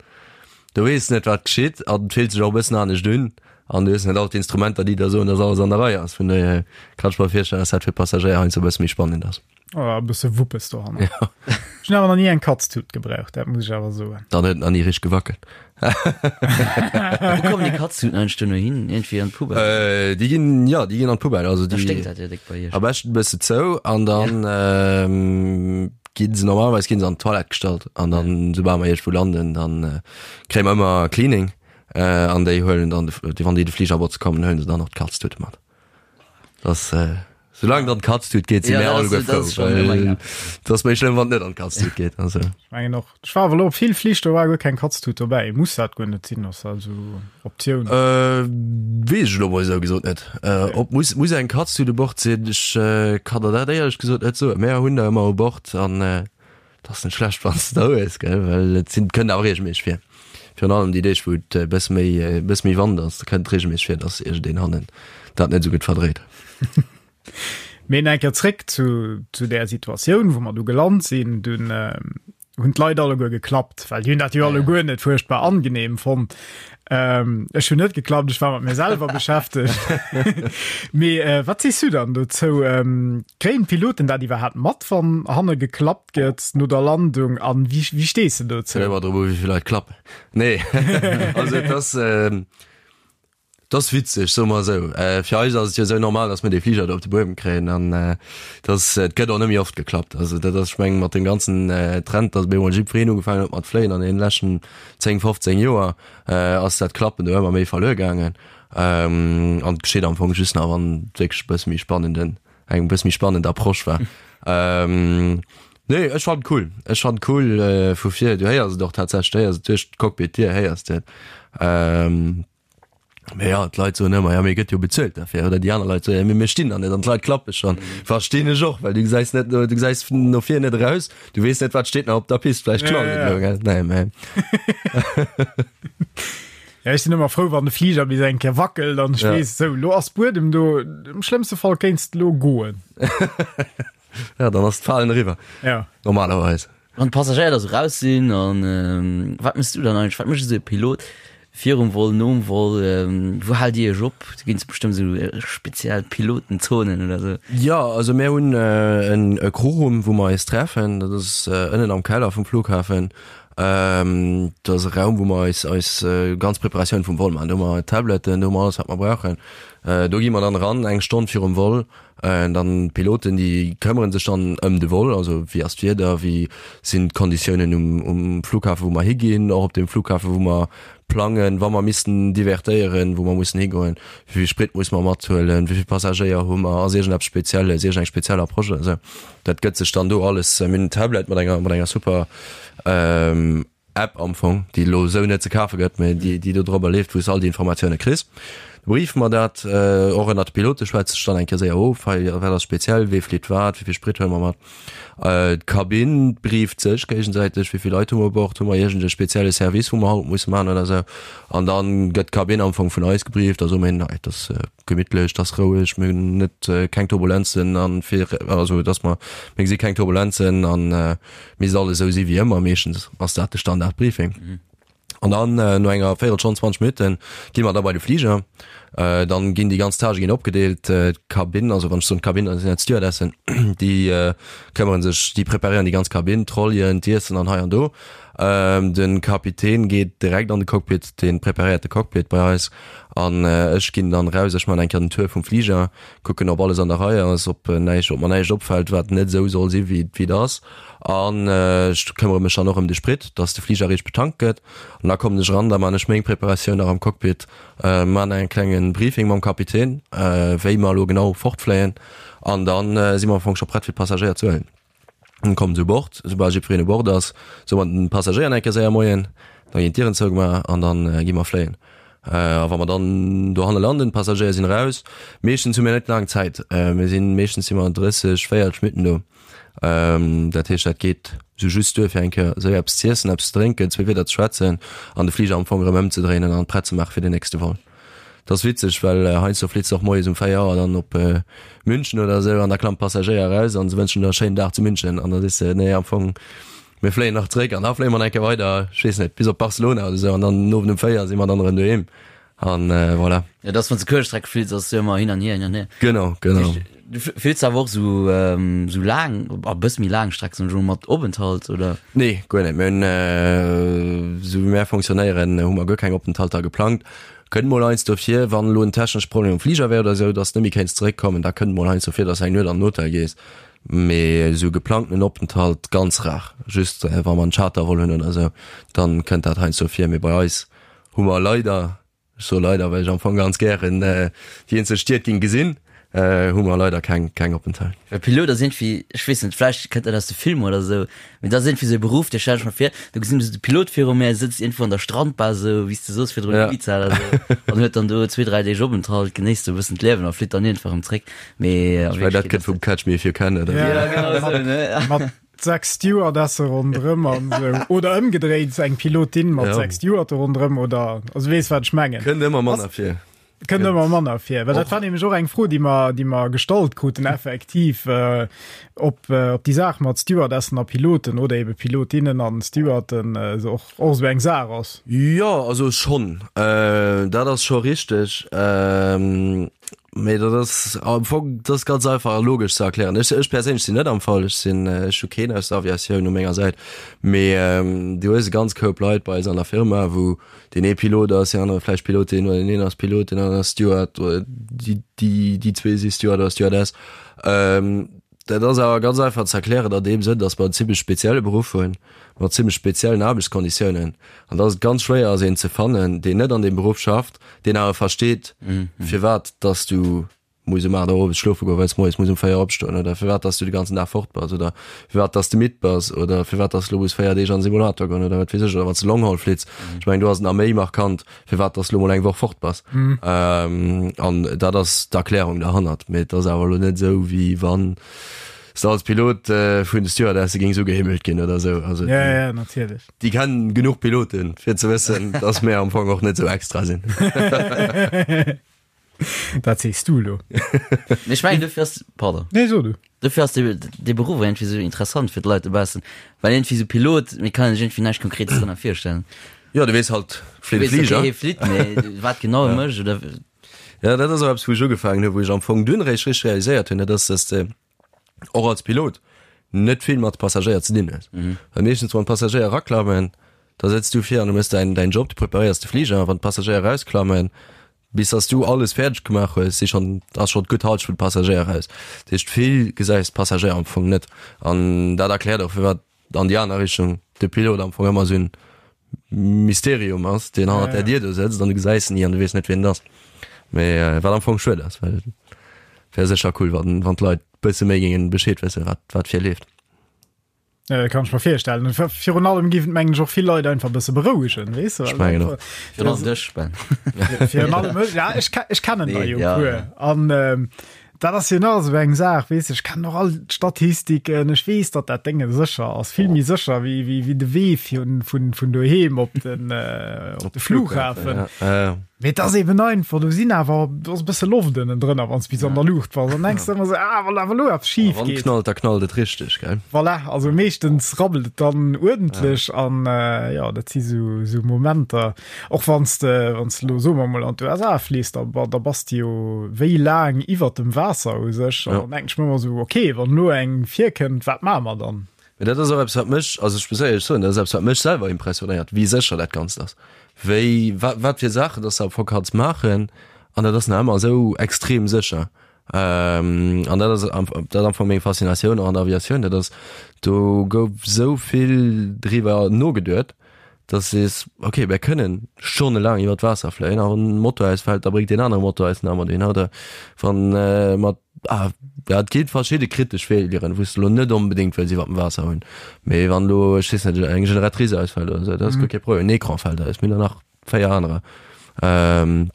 do weess de net, wat geschitt an et fillt sech och e bëssen anescht un an du hues net all d'Instrumenter, déi der soen, dass alles an der Rei ass. Vun dohier kann ech mer virstellen, dass dat fir d'Passagéier heiansdo e bësse méi spannend ass. Oh, e bësse Wuppes dohanner. Ja. Ech hunn awer nach ni eng Katztut gebraucht, dat muss ech awer soen. Dann huet en nach ni richteg gewackelt. Wou kommen déi Katztuten eigentlech duerno hin? Iergendwéi an d'Poubelle? Äh, déi ginn, ja, déi ginn an d'Poubelle. Also Da déi sténkt dat jo déck bei iech. am beschten e bësse zou an dann ähm, ginn se normalerweis ginn se an d'Toilette gestallt an dann soubal mer iergendwou landen, dann äh, kréie mer ëmmer Cleaning äh, an déi huelen dann de, wann déi de Fliger botze kommen, huelen se dann och d'Katztute mat. Das, äh, solange et an d'Kaztut geet, si Ja, mir dat ass- alleguer dat ass frou. schon Well ëmmer et ass méi schlëmm, wann et net an d'Kaztut geet. Also. Ech mengen och. Ech war awer elo op vill Flich, do war guer keng Katztut dobäi. Muss dat guer net sinn, ass dat esou Optioun? Äh, weess ech elo mol esou gesot net. Äh, ob muss, muss eng Katztut u Bord sinn? Ech äh, kann der dat éierlech gesot net soen. Mär hunn der ëmmer u Bord an äh, Et ass net schlecht wann s de der hues, gell, well et sinn, kënnt awer reegelméisseg vir. Virun allem déi Deeg wou et e bësse méi, e bësse méi Wand ass, da kënnt et reegelméisseg vir, dass iergendeen hannen dat net esou gutt verdréit. Mee nach eng Kéier zréck zu, zu där Situatioun, wou mer du gelant sinn. Dunn hunn d'Leit alleguer geklappt, well déi hunn dat jo alleguer net fuerchtbar angenehm fonnt. Ähm, ech hunn net geklappt, ech war mat mir selwer beschäftegt. Mee äh, wat sees du dann dozou? Ähm, kréien d'Piloten dat iwwerhaapt mat, wann hanne geklappt gëtt no der Landung? An wéi, wéi stees du dozou? Kënnt ëmmer drop u wéi vill Leit klappen. Nee, also et ass, ähm, et ass witzeg, soe mer esou. Äh, fir eis ass et jo esou normal, datt mir dee Fliger do op de Buedem kréien an äh, dass et gëtt och net méi oft geklappt. Also dat ass, ech mengen, mat deem ganzen äh, Trend, datt op eemol jiddwereen ugefaangen huet mat fléien an deenen leschten 10, 15 Joer, ass dat Klappen do ëmmer méi verluer gaangen. An et geschitt am Fong just nach, wann et wierklech e bësse méi spannenden. Eng bëss méi spannend Approche war. Ähm, nee, ech fand cool. Ech fand cool äh, vu vir, du héiers et och tatsächlech, du héiers et duerch d'Cockpit-Dier héiers de et. Ähm, mee ja, d'Leit soen ëmmer, ja mee gëtt jo bezuelt derfir, oder déi aner Leit soen, ja mee mir stinn da net an d'Leit klappe schonn. Verstinn ech och, well du gesäis net, du gesäis no vir net eraus, du weess net wat steet nach op der Pist, vläicht knallt et elo, gell? Nee, mee. Ja, ech sinn ëmmer frou, wann de Fliger bis eng Kéier wackelt an ech ja. weess, sou, lo ass Buedem do, im schlëmmste Fall kéinst lo goen. ja, dann ass d'Falen eriwwer. Ja. Normalerweis. Wann d'Passagéier da sou raus sinn an ähm, wat mëss du dann eigentlich? Wat mécht esou e Pilot virum Vol, nom Vol? Ähm, wou haalt Dir iech op? Do ginn et bestëmmt esou äh, speziell Pilotenzonen oder sou. Ja, also mir hunn äh, en e Crewroom, wou mer eis treffen. Dat ass äh, ënnen am Keller vum Flughafen. Dat ass e Raum, wou mer eis eis ganz Preparatioun vum Vol maachen. Do hu mer Tabletten, do hu mer alles, wat mer brauchen. Do gi mer dann eran eng Stonn virum Vol. Dann d'Piloten, déi këmmere sech dann ëm de Vol, also wéi ass d'Wieder, wéi sinn d'Konditiounen um um Flughafen, wou mer higinn, och op deem Flughafen, wou mer plangen, wa mer missten divertéieren, wou mer mussen higoen, wéi vill Sprit muss mer mathuelen, wéi vill Passagéier hu mer, ass iergendeppes Spezielles, iergendeng speziell Approche oder esou. Dat gëtt sech dann do alles, mir hunn en Tablet mat enger, mat enger super App am Fong, déi elo esou net ze kafe gëtt, mä déi, déi do drobber leeft, wou s all déi Informatioune kriss. Da briefe mer dat och ënnert de Pilote, schwätze sech dann eng Kéier séier of, hei, wat ass speziell, wee flitt wat, wéi vill Sprit huele mer mat. D'Kabinn brieft sech géigesäiteg, wéi vill Leit hu mer u Bord, hu mer iergend e spezielle Service, wou mer haut musse maachen oder esou. An da gëtt d'Kabinn am Fong vun eis gebrieft, da soe mir hinnen, hei, et ass gemittlech, et ass roueg, mir hunn net keng Turbulenzen an fir also dass mer mir gesi keng Turbulenzen an misst alles esou si wéi ëmmer. Meeschtens ass dat de Standardbriefing. An dann no enger Véierelstonn, 20 Minutten gi mer da bei de Fliger. Dann ginn déi ganz Tâchë ginn opgedeelt. D'Kabinn, also wann ech soen d'Kabinn, dat sinn dat d'Stewardessen, déi këmmere sech, déi preparéieren déi ganz Kabinn, d'Trollyen, d'Iessen an hei an do. De Kapitän geet direkt an de Cockpit, dee preparéiert de Cockpit bei eis an ech ginn dann raus, ech man eng Kéier den Tour vum Fliger, kucken ob alles an der Rei ass, ob näischt, ob mer näischt opfält wat net esou soll si wéi et ass an ech këmmere mech dann och ëm de Sprit, dass de Fliger richteg betankt gëtt an da kommen ech eran, da man ech meng Preparatioun nach am Cockpit, man en klengen Briefing mam Kapitän wéi mer elo genau fortfléien an dann si mer am Fong scho prett fir d'Passagéier ze huelen. Kommen se u Bord, soubal jiddwereen u Bord ass, soe mer den Passagéier nach eng Kéier séier Moien, da ginn d'Dieren zougemaach an dann gi mer fléien. A wa mer dann dohanne landen, d'Passagéier sinn eraus, meeschtens hu mir net laang Zäit, mir sinn, meeschtens si mer 30, 40 Minutten do, dat heescht dat geet sou just duer fir eng Kéier séier eppes z'iessen, eppes ze drénken, zwee Wieder ze schwätzen an de Fliger am Fong erëm ëmzedréinen an prett ze maache fir den nächste Vol. Dat ass witzeg, well heiansdo flitt se och moies um 4 Auer dann op München oder esou an da klammt d'Passagéier eraus an se wënschen der e schéinen Dag zu München an da sees de, nee am Fong mir fléien nach zréck an da fléie mer nach eng Kéier weider, ech weess net, bis op Barcelona oder esou an dann den Owend um 4 si mer dann erëm doheem an voilà. Jo, dat ass wann s de Kuertstreck flitts, ass jo ëmmer hin an hier, hin an hier. Genau, genau. Du flitts awer och esou esou laang, a bësse méi laang Streck, soen ech emol, mat Openthalt oder? Nee, guer net. Mir hunn, esou wéi mär fonctionnéieren, hu mer guer keng Openthalter geplangt. Kënnt mol heiansdo vir, wann elo en technesche Problem um Fliger wär oder esou, dass de net méi kéints zeréckkommen, da kënnt mol heiansdo vir, dass de eng Nuet an den Hotel gees. Mee esou geplangtenen Openthalt ganz rar. Just wa mer en Chartervol hunn oder esou, dann kënnt dat heiansdo vir. Mee bei eis hu mer leider Ech soe leider, well ech am Fong ganz gären déi eenzel Stied ging gesinn, hu mer leider keng keng Openthalt. Well Pilot ass iergendwéi, ech weess net, vläicht kënnt dat aus de Filmer oder esou, mee dat ass iergendwéi esou e Beruff, dee stell ech mer vir, do gesinn ech esou de Pilot viru mir, sëtzt iergendwou an der Strandbar esou, wéi s de soos virdrun, Ja. Ibiza oder esou, an huet dann do zwee, dräi Deeg Openthalt, genéisst esou e bëssen d'Liewen a flitt dann iergendwa erëm zréck. Mee a Ech mengen, dat Wierklechkeet kënnt ass vum dat. Catch Me If You Can, oder? Ja, Ja, genau esou, ne? Mat sechs Stewardesse ronderëm an esou. Oder ëmgedréit, eng Pilotin mat Ja. sechs Stewarde ronderëm oder, also weess wat ech mengen. Kënnt ëmmer manner vir. Kënnt ëmmer manner vir. Well dat war nämlech och eng Fro, déi mer, déi mer gestallt kruten, effektiv, äh, ob, äh, ob déi Saach mat Stewardessen a Piloten oder ebe Pilotinnen an Stewarden äh, so och, och esou eng Saach ass. Jo, also schonn. Äh, dat ass scho richteg. Ähm, Mee dat ass am Fong, dat ass ganz einfach a logesch ze erklären. Ech, ech perséinlech sinn net am Fall, ech sinn, ech hu keen aus der Aviatioun u menger Säit. Mee du hues e ganz Koup Leit bei eis an der Firma, wou deen ee Pilot ass, deen anere vläicht Pilotin oder deen een ass Pilot, deen aneren ass Steward oder déi, déi, déi zwee si Steward oder Stewardess. Dat ass awer ganz einfach ze erklären an deem Sënn, datt mer en zimmlech spezielle Beruff hunn, mat zimmlech speziellen Aarbechtskonditiounen, an datt et ganz schwéier ass, een ze fannen, deen net an deem Beruff schafft, deen awer versteet, firwat datt du. muss um 8 Auer owes schlofe goen, well s moies muss um 4 opstoen oder firwat dass du de ganzen Dag fort bass oder firwat dass de midd bass oder firwat dass du lo muss 4 Deeg an den Simulator goen oder wat weess ech oder wann s de Longhaul flitts. Ech mengen do ass et nach méi markant, firwat dass du lo mol eng Woch fort bass. An dat ass d'Erklärung derhannert. Mee et ass awer elo net esou wéi wann s de als Pilot vun de Stewardesse géings ugehimmelt ginn oder esou. Also Ja, ja, natierlech. déi kennen genuch Piloten fir ze wëssen, dass mir am Fong och net esou extra sinn. Dat sees du elo. Mee ech mengen dofir ass, pardon. Nee, so du. Dofir ass dee, dee Beruff och iergendwéi esou interessant fir d'Leit dobaussen, well iergendwéi esou Pilot, mir kann sech iergendwéi näischt Konkretes drënner virstellen. Jo, du weess halt, flitt e Fliger. Okay, hie flitt, mee wat genau e mécht oder. Ja, dat ass och eppes, wou ech ugefaangen hu, wou ech am Fong dunn eréischt richteg realiséiert hunn, dat ass, dass de och als Pilot net vill mat Passagéier ze dinn hues. Well meeschtens, wann d'Passagéier eraklammen, da sëtz du vir an du méchs däin, däin Job, du preparéiers de Fliger, a wann d'Passagéier erausklammen, bis dass du alles fäerdeg gemaach hues, si schonn, ass schonn d'gutt Halschent vun de Passagéier eraus. Dat heescht, vill gesäis d'Passagéier am Fong net. An dat erkläert och, firwat an déi aner Richtung de Pilot am Fong ëmmer esou en Mysterium ass, deen hannert der Dier do sëtzt an du gesäis en ni an du weess net, wien et ass. Mee wat am Fong schued ass, well wär sécher cool, wann, wann d'Leit bësse méi géingen Bescheed wëssen, wat, wat vir leeft. Ja, dat kann ech mer virstellen. Virun allem géif et mengen ech och vill Leit einfach e bësse berouegen, weess de? Ech mengen och. Virun allem dech, Ben. Virun allem mech, ja, ech, ech kennen der jo e puer. An ähm, dat ass jo nach esou eng Saach, weess de, ech kennen och all d'Statistiken, ech weess, datt dat Dénge sécher ass, vill méi sécher wéi, wéi, wéi de Wee vun, vun, vun doheem op den, äh, op de Flughafen. Ja, ja. Mee et ass eben einfach, do sinn awer, do ass e bësse Loft ënnen drënner, wann s bis an der Luucht bass. An denkst ëmmer esou, ah, wann awer elo eppes schif Wann geet. knallt, da knallt et richteg, gell? Voilà, also meeschtens rabbelt et dann uerdentlech an äh, ja, dat si sou, sou Momenter. Och wann s de, wann s de elo, soe mer mol, an d'USA fliss, da, da bass de jo wéi laang iwwert dem Waasser u sech. An Ja. dann denken ech mir ëmmer esou, okay, wann elo eng virkënnt, wat maache mer dann? Mee dat ass och eppes, wat mech, also ech muss éierlech soen, dat ass eppes, wat mech selwer impressionéiert, wéi sécher dat Ganzt ass, wéi, wat, wat fir Saachen dass de am Fong kanns maachen an dat ass nach ëmmer esou extrem sécher. An dat ass am, dat ass am Fong meng Faszinatioun och an der Aviatioun, dat ass, do gouf esou vill driwwer nogeduet, dass de sees, okay, mir kënnen stonnelaang iwwer d'Waasser fléien a wann en Motor ausfält, da bréngt deen anere Motor eis nach ëmmer dohinner oder wann mat Ah, ja, et ginn verschidde kritesch Failuren, wou s de lo net onbedéngt wëlls iwwer dem Waasser hunn. Mee wann lo, ech weess net, eng Generatrice ausfält oder esou, dat ass guer kee Problem. En Ecran fält aus, mir hunn der nach 4 anerer. Ähm,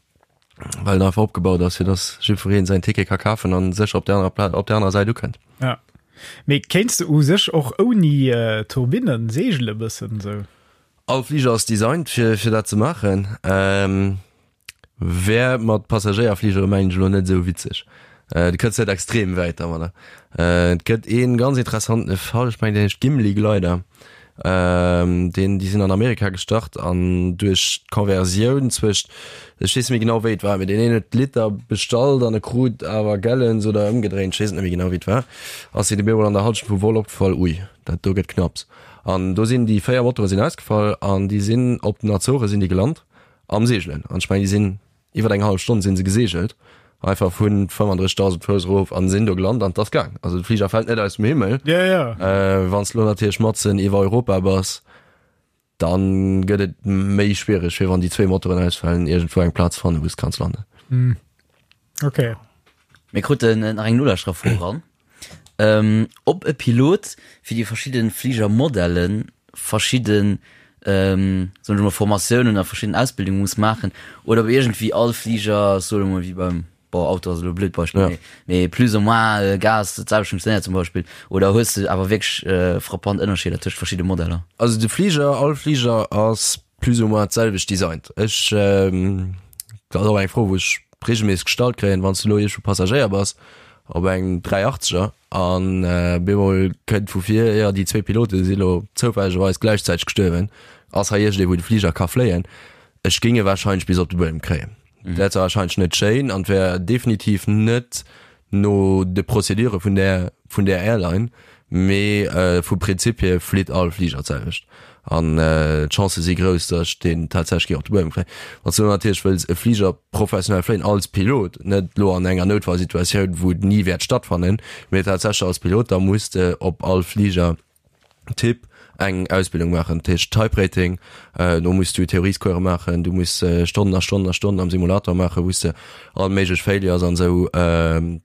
well en einfach opgebaut ass, fir dass jiddwereen säin Ticket ka kafen an sécher op der anerer Pla op der anerer Säit ukënnt. Ja. Mee kéints de u sech och ouni Turbinnen seegele bëssen esou? All Fliger ass designt fir, fir dat ze maachen. Ähm, Wär mat Passagéierfligere mengen ech elo net esou witzeg. Du kënns net extrem wäit dermadder. Et gëtt ee ganz interessantene Fall, ech mengen deen heescht Gimli Glider. Deen, déi sinn an Amerika gestart an duerch d'Conversioun zwëscht, ech weess net méi genau wéi et war, mee deen een huet Liter bestallt an e krut awer Gallons oder ëmgedréint, ech weess et net méi genau wéi et war, ass hinnen op eemol an der Halschent vum Vol opgefall, ui, dat do gëtt knapps. An do sinn déi 4 Motore sinn ausgefall an déi sinn op den Azore sinn déi gelant. Am Seegelen. An ech mengen, déi sinn iwwer eng hallef Stonn sinn se geseegelt, einfach vun 35.000 Fouss erof an sinn do gelant an 't ass gaang. Also de Fliger fält net aus dem Himmel. Ja, ja. Äh, wann s de lo natierlech matzen iwwer Europa bass, dann gëtt et méi schwiereg, fir wann déi zwee Motoren ausfalen, iergendwou eng Plaz fannen, wou s kanns landen. Okay. Mir kruten nach eng Nolauschtererfro eran. Ähm, ob e Pilot fir déi verschidde Fligermodellen verschidden, ähm, soen ech mol, Formatiounen a verschidden Ausbildunge muss maachen oder ob iergendwéi all Fliger, ech soen emol wéi beim, bon, Auto ass elo e blöd Beispill, Ja. mee, mee plus ou moins Gas dat selwecht funktionéiert zum Beispill. Oder hues de awer wierklech frappant Ënnerscheeder tëscht verschidde Modeller? Also de Fliger, all Fliger ass plus ou moins d'selwecht designt. Ech, dat ass och eng Fro wou ech regelméisseg gestallt kréien, wann s du elo iergendwou Passagéier bass op engem 380er an bemol kënnt vu vir, jo déi zwee Pilote si lo zoufällegerweis gläichzäiteg gestuerwen, ass hei iergendee wou de Fliger ka fléien? Ech géing e warscheinlech bis op de Buedem kréien. Dat wär warscheinlech net schéin an wär definitiv net no de Procédure vun där vun där Airline, mee vum Prinzip hier flitt all Fliger d'selwecht an d'Chancë si grouss, datt ech deen tatsächlech géing op de Buedem kréien. Wann s du natierlech wëlls e Fliger professionell fléien als Pilot, net elo an enger Noutfallsituatioun, wou et ni wäert stattfannen, mee tatsächlech als Pilot, da muss de op all Fliger Typ. eng Ausbildung maachen, dat heescht Type Rating. Do muss du Theoriescourse maachen, du muss Stonnen a Stonnen a Stonnen am Simulator maachen, wou s de all méiglech Failures an esou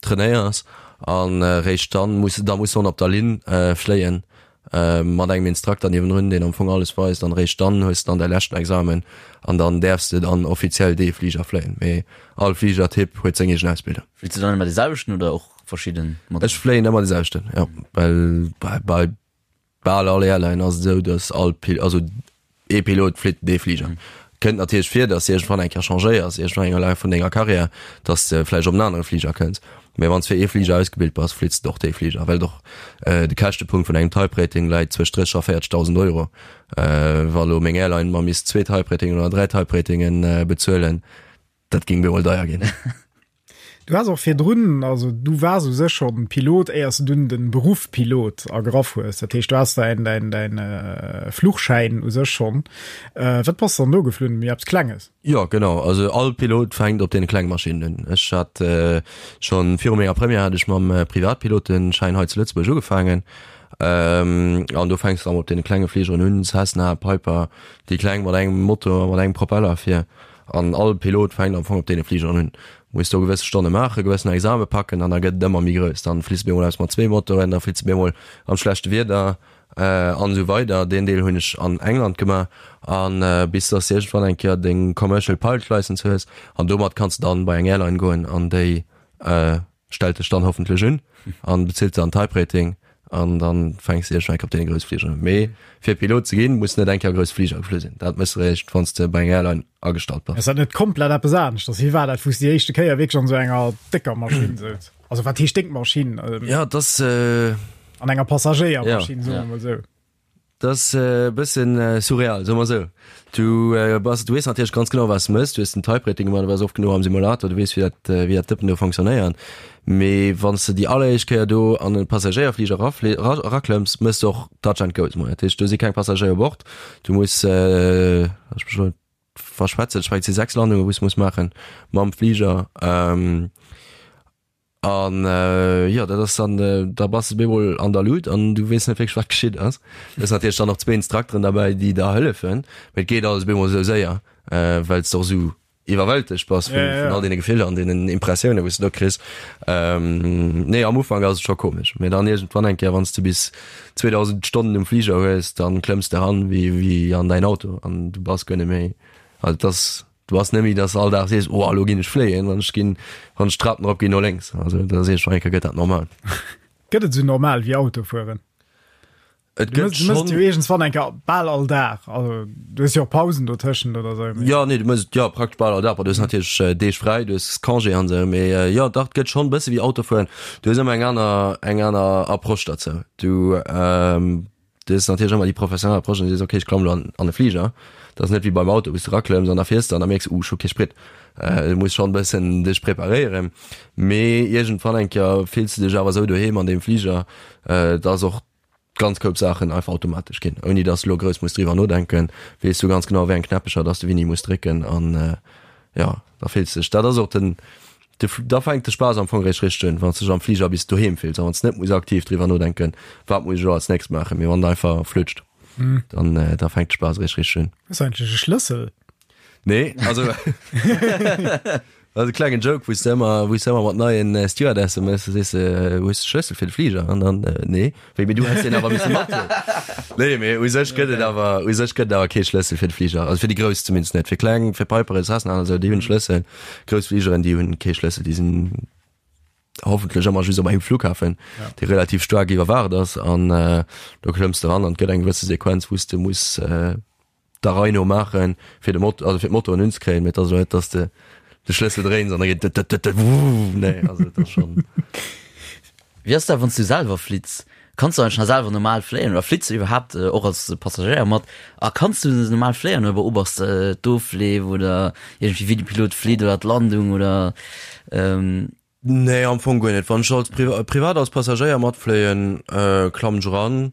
trainéiers an réischt dann muss da muss de op der Linn fléien mat engem Instrukter niewendrun, deen am Fong alles weist an réischt dann hues de dann däi leschten Examen an dann däerfs de dann offiziell dee Fliger fléien. Mee all Fligertyp huet seng eegen Ausbildung. Fliits de dann ëmmer dee selwechten oder och verschidden Modeller? Ech fléien ëmmer dee selwechten, jo, well bei bal all Airline ass et esou, datt all Pil-, also ee Pilot flitt dee Fliger. Kënnt natierlech vir, datt s de iergendwann eng Kéier changéiers, iergendwann eng Laf vun denger Karriär, datt s de vläicht op en anere Fliger kënns. Mee wann s fir ee Fliger ausgebilt bass, flitts de och dee Fliger, well et och de Käschtepunkt vun engem Type Rating läit zwëscht 30 a 40.000 Euro. Wa lo meng Airline mer misst zwee Type Ratingen oder dräi Type Ratingen bezuelen, dat géing bemol deier ginn. Du has och virdrun, also du waars u sech schonn Pilot, éiers du dunn de Beruff Pilot ergraff hues. Dat heescht, du has däin, däin, däin Fluchschäin u sech schonn. Wat bass de dann do geflunn? Méi eppes Klenges? Jo, genau. Also all Pilot fänkt op deene klenge Maschinnen un. Ech hat schonn viru menger Première hat ech mam Privatpiloteschäin hei zu Lëtzebuerg ugefaangen. An do fänks de dann op deene klenge Fligeren un, Cessna, Piper, déi kleng mat engem Motor, mat engem Propeller vir. An all Pilot fänkt am Fong op deene Fligeren un. Muss do gewësse Stonne maachen, gewëssen Exame packen an da gëtt et ëmmer méi grouss. Dann fliss de bemol eppes mat zwee Motoren, da fliss de bemol am schlechte Wieder an esou weider. Deen Deel hunn ech an England gemaach an bis dass de iergendwann eng Kéier deng Commercial Pilot License hues an domat kanns de dann bei eng Airline goen an déi stellt dech dann hoffentlech un an bezilt dann Type Rating an dann fänks de iergendwann eng Kéier op deene grousse Fligeren un. Mee fir Pilot ze ginn, muss net eng Kéier grouss Fliger geflu sinn. Dat méchs de eréischt wann s de bei enger Airline agestallt bass. Ass dat net komplett eppes aneschters? Wéi war dat, wou s de déi éischte Kéier wierklech an esou enger décker Maschinn souz? Also wat heescht déck Maschinn? Jo, et ass. An enger Passagéiermaschinn, soe mer mol esou. Dat ass e bëssen surreal, soe mer esou. Du bass, du weess natierlech ganz genau, wat s de mëss. Du hues den Type Rating gemaach, du waars oft genuch am Simulator, du weess, wéi dat, wéi dat Dëppen do fonctionnéiert. Mee wann s de déi alleréischt Kéier do an e Passagéierfliger erafli-, era, eraklëmms, mëss de och Touch and Go. Dat heescht, do si keng Passagéier u Bord. Du muss, ech mech elo net verschwätzen, ech mengen, et si 6 Landungen, wou s de muss maachen mam Fliger. An jo, dat ass dann, da bass de bemol an der Luut an du weess net wierklech, wat geschitt ass. Du hues natierlech dann och zwee Instrukteren derbäi, déi der hëllefen, mee et geet alles bemol esou séier, well s de och esou iwwerwältegt bass vun vun all deene Gefiller an deenen Impressiounen, wou s de do kriss. Nee, am Ufank ass et scho komesch, mee dann iergendwann eng Kéier, wann s de bis 2.000 Stonnen um Fliger hues, dann klëmms de eran wéi wéi an däin Auto an du bass guer net méi, also et ass Du ass net méi, dass all Dag sees, oh elo ginn ech fléien, wann ech ginn, wann ech d'Trapen erop ginn no lénks. Also da sees ech, eng Kéier gëtt dat normal. Gëtt et esou normal wéi Autofueren? Et gëtt schonn. Du mëss et jo iergendswann eng Kéier bal all Dag. Also du hues jo och Pausen dotëschent oder esou. Jo, nee, du mëss et jo praktesch bal all Dag. Bon, du hues natierlech Deeg fräi, du hues Congé an esou, mee jo, dach, et gëtt schonn e bësse wéi Autofueren. Du hues ëmmer eng aner, eng aner Approche derzou. Du. Du hues natierlech ëmmer déi professionell Approche an du sees, okay, ech klamm elo an, an e Fliger. Dat ass net wéi beim Auto, wou s du eraklëmms an da fiers de an da mierks, uh, ech hu kee Sprit. Du muss schonn e bëssen dech preparéieren. Mee iergendwann eng Kéier fills du dech awer esou doheem an deem Fliger, dass och ganz Koup Saachen einfach automatesch ginn, ouni dass du elo grouss muss driwwer nodenken. Weess du ganz genau, wéi eng Knäppecher dass du wéini muss drécken an jo, da fills du dech, dat ass och den, De, da fänkt de Spaass am Fong eréischt richteg un, wann s de dech am Fliger bis doheem fills a wann s de net muss aktiv driwwer nodenken, wat muss ech elo als nächst maachen, mee wann et einfach flutscht, dann, da fänkt de Spaass eréischt richteg un. Hues du eigentlech e Schlëssel? Nee, also dat ass e klengen Joke, wou s de ëmmer, wou s de ëmmer mat neien Stewardesse méchs, da sees de, hues de Schlëssel fir de Fliger? An dann, nee, wéi, mee du häss deen awer misse mathuelen. Nee, mee u sech gëtt et awer, u sech gëtt et awer kee Schlëssel fir de Fliger, also fir déi grouss zumindest net, fir kleng, fir Piper, Cessna an esou, déi hunn Schlëssel. Grouss Fligeren, déi hunn kee Schlëssel, déi sinn hoffentlech ëmmer just op engem Flughafen, ja. dee relativ staark iwwerwaacht ass an äh, do klëmms de ran an gëtt eng gewësse Sequenz, wou s de muss äh, der Rei no maachen, fir de Mot also fir d'Motoren unzekréien, mee et ass elo net, dass de de Schlëssel dréins an da geet dët dët dët wuuh, nee, also et ass schonn. Wéi ass dat wann s du selwer flitts? Kanns du eigentlech nach selwer normal fléien oder flitts du iwwerhaapt och als Passagéier mat? A kanns du normal fléien oder beobachts de d'Ofleef oder iergendwéi wéi de Pilot flitt oder d'Landung oder? Nee, am Fong guer net. Wann ech als privat als Passagéier matfléien, klammen ech eran.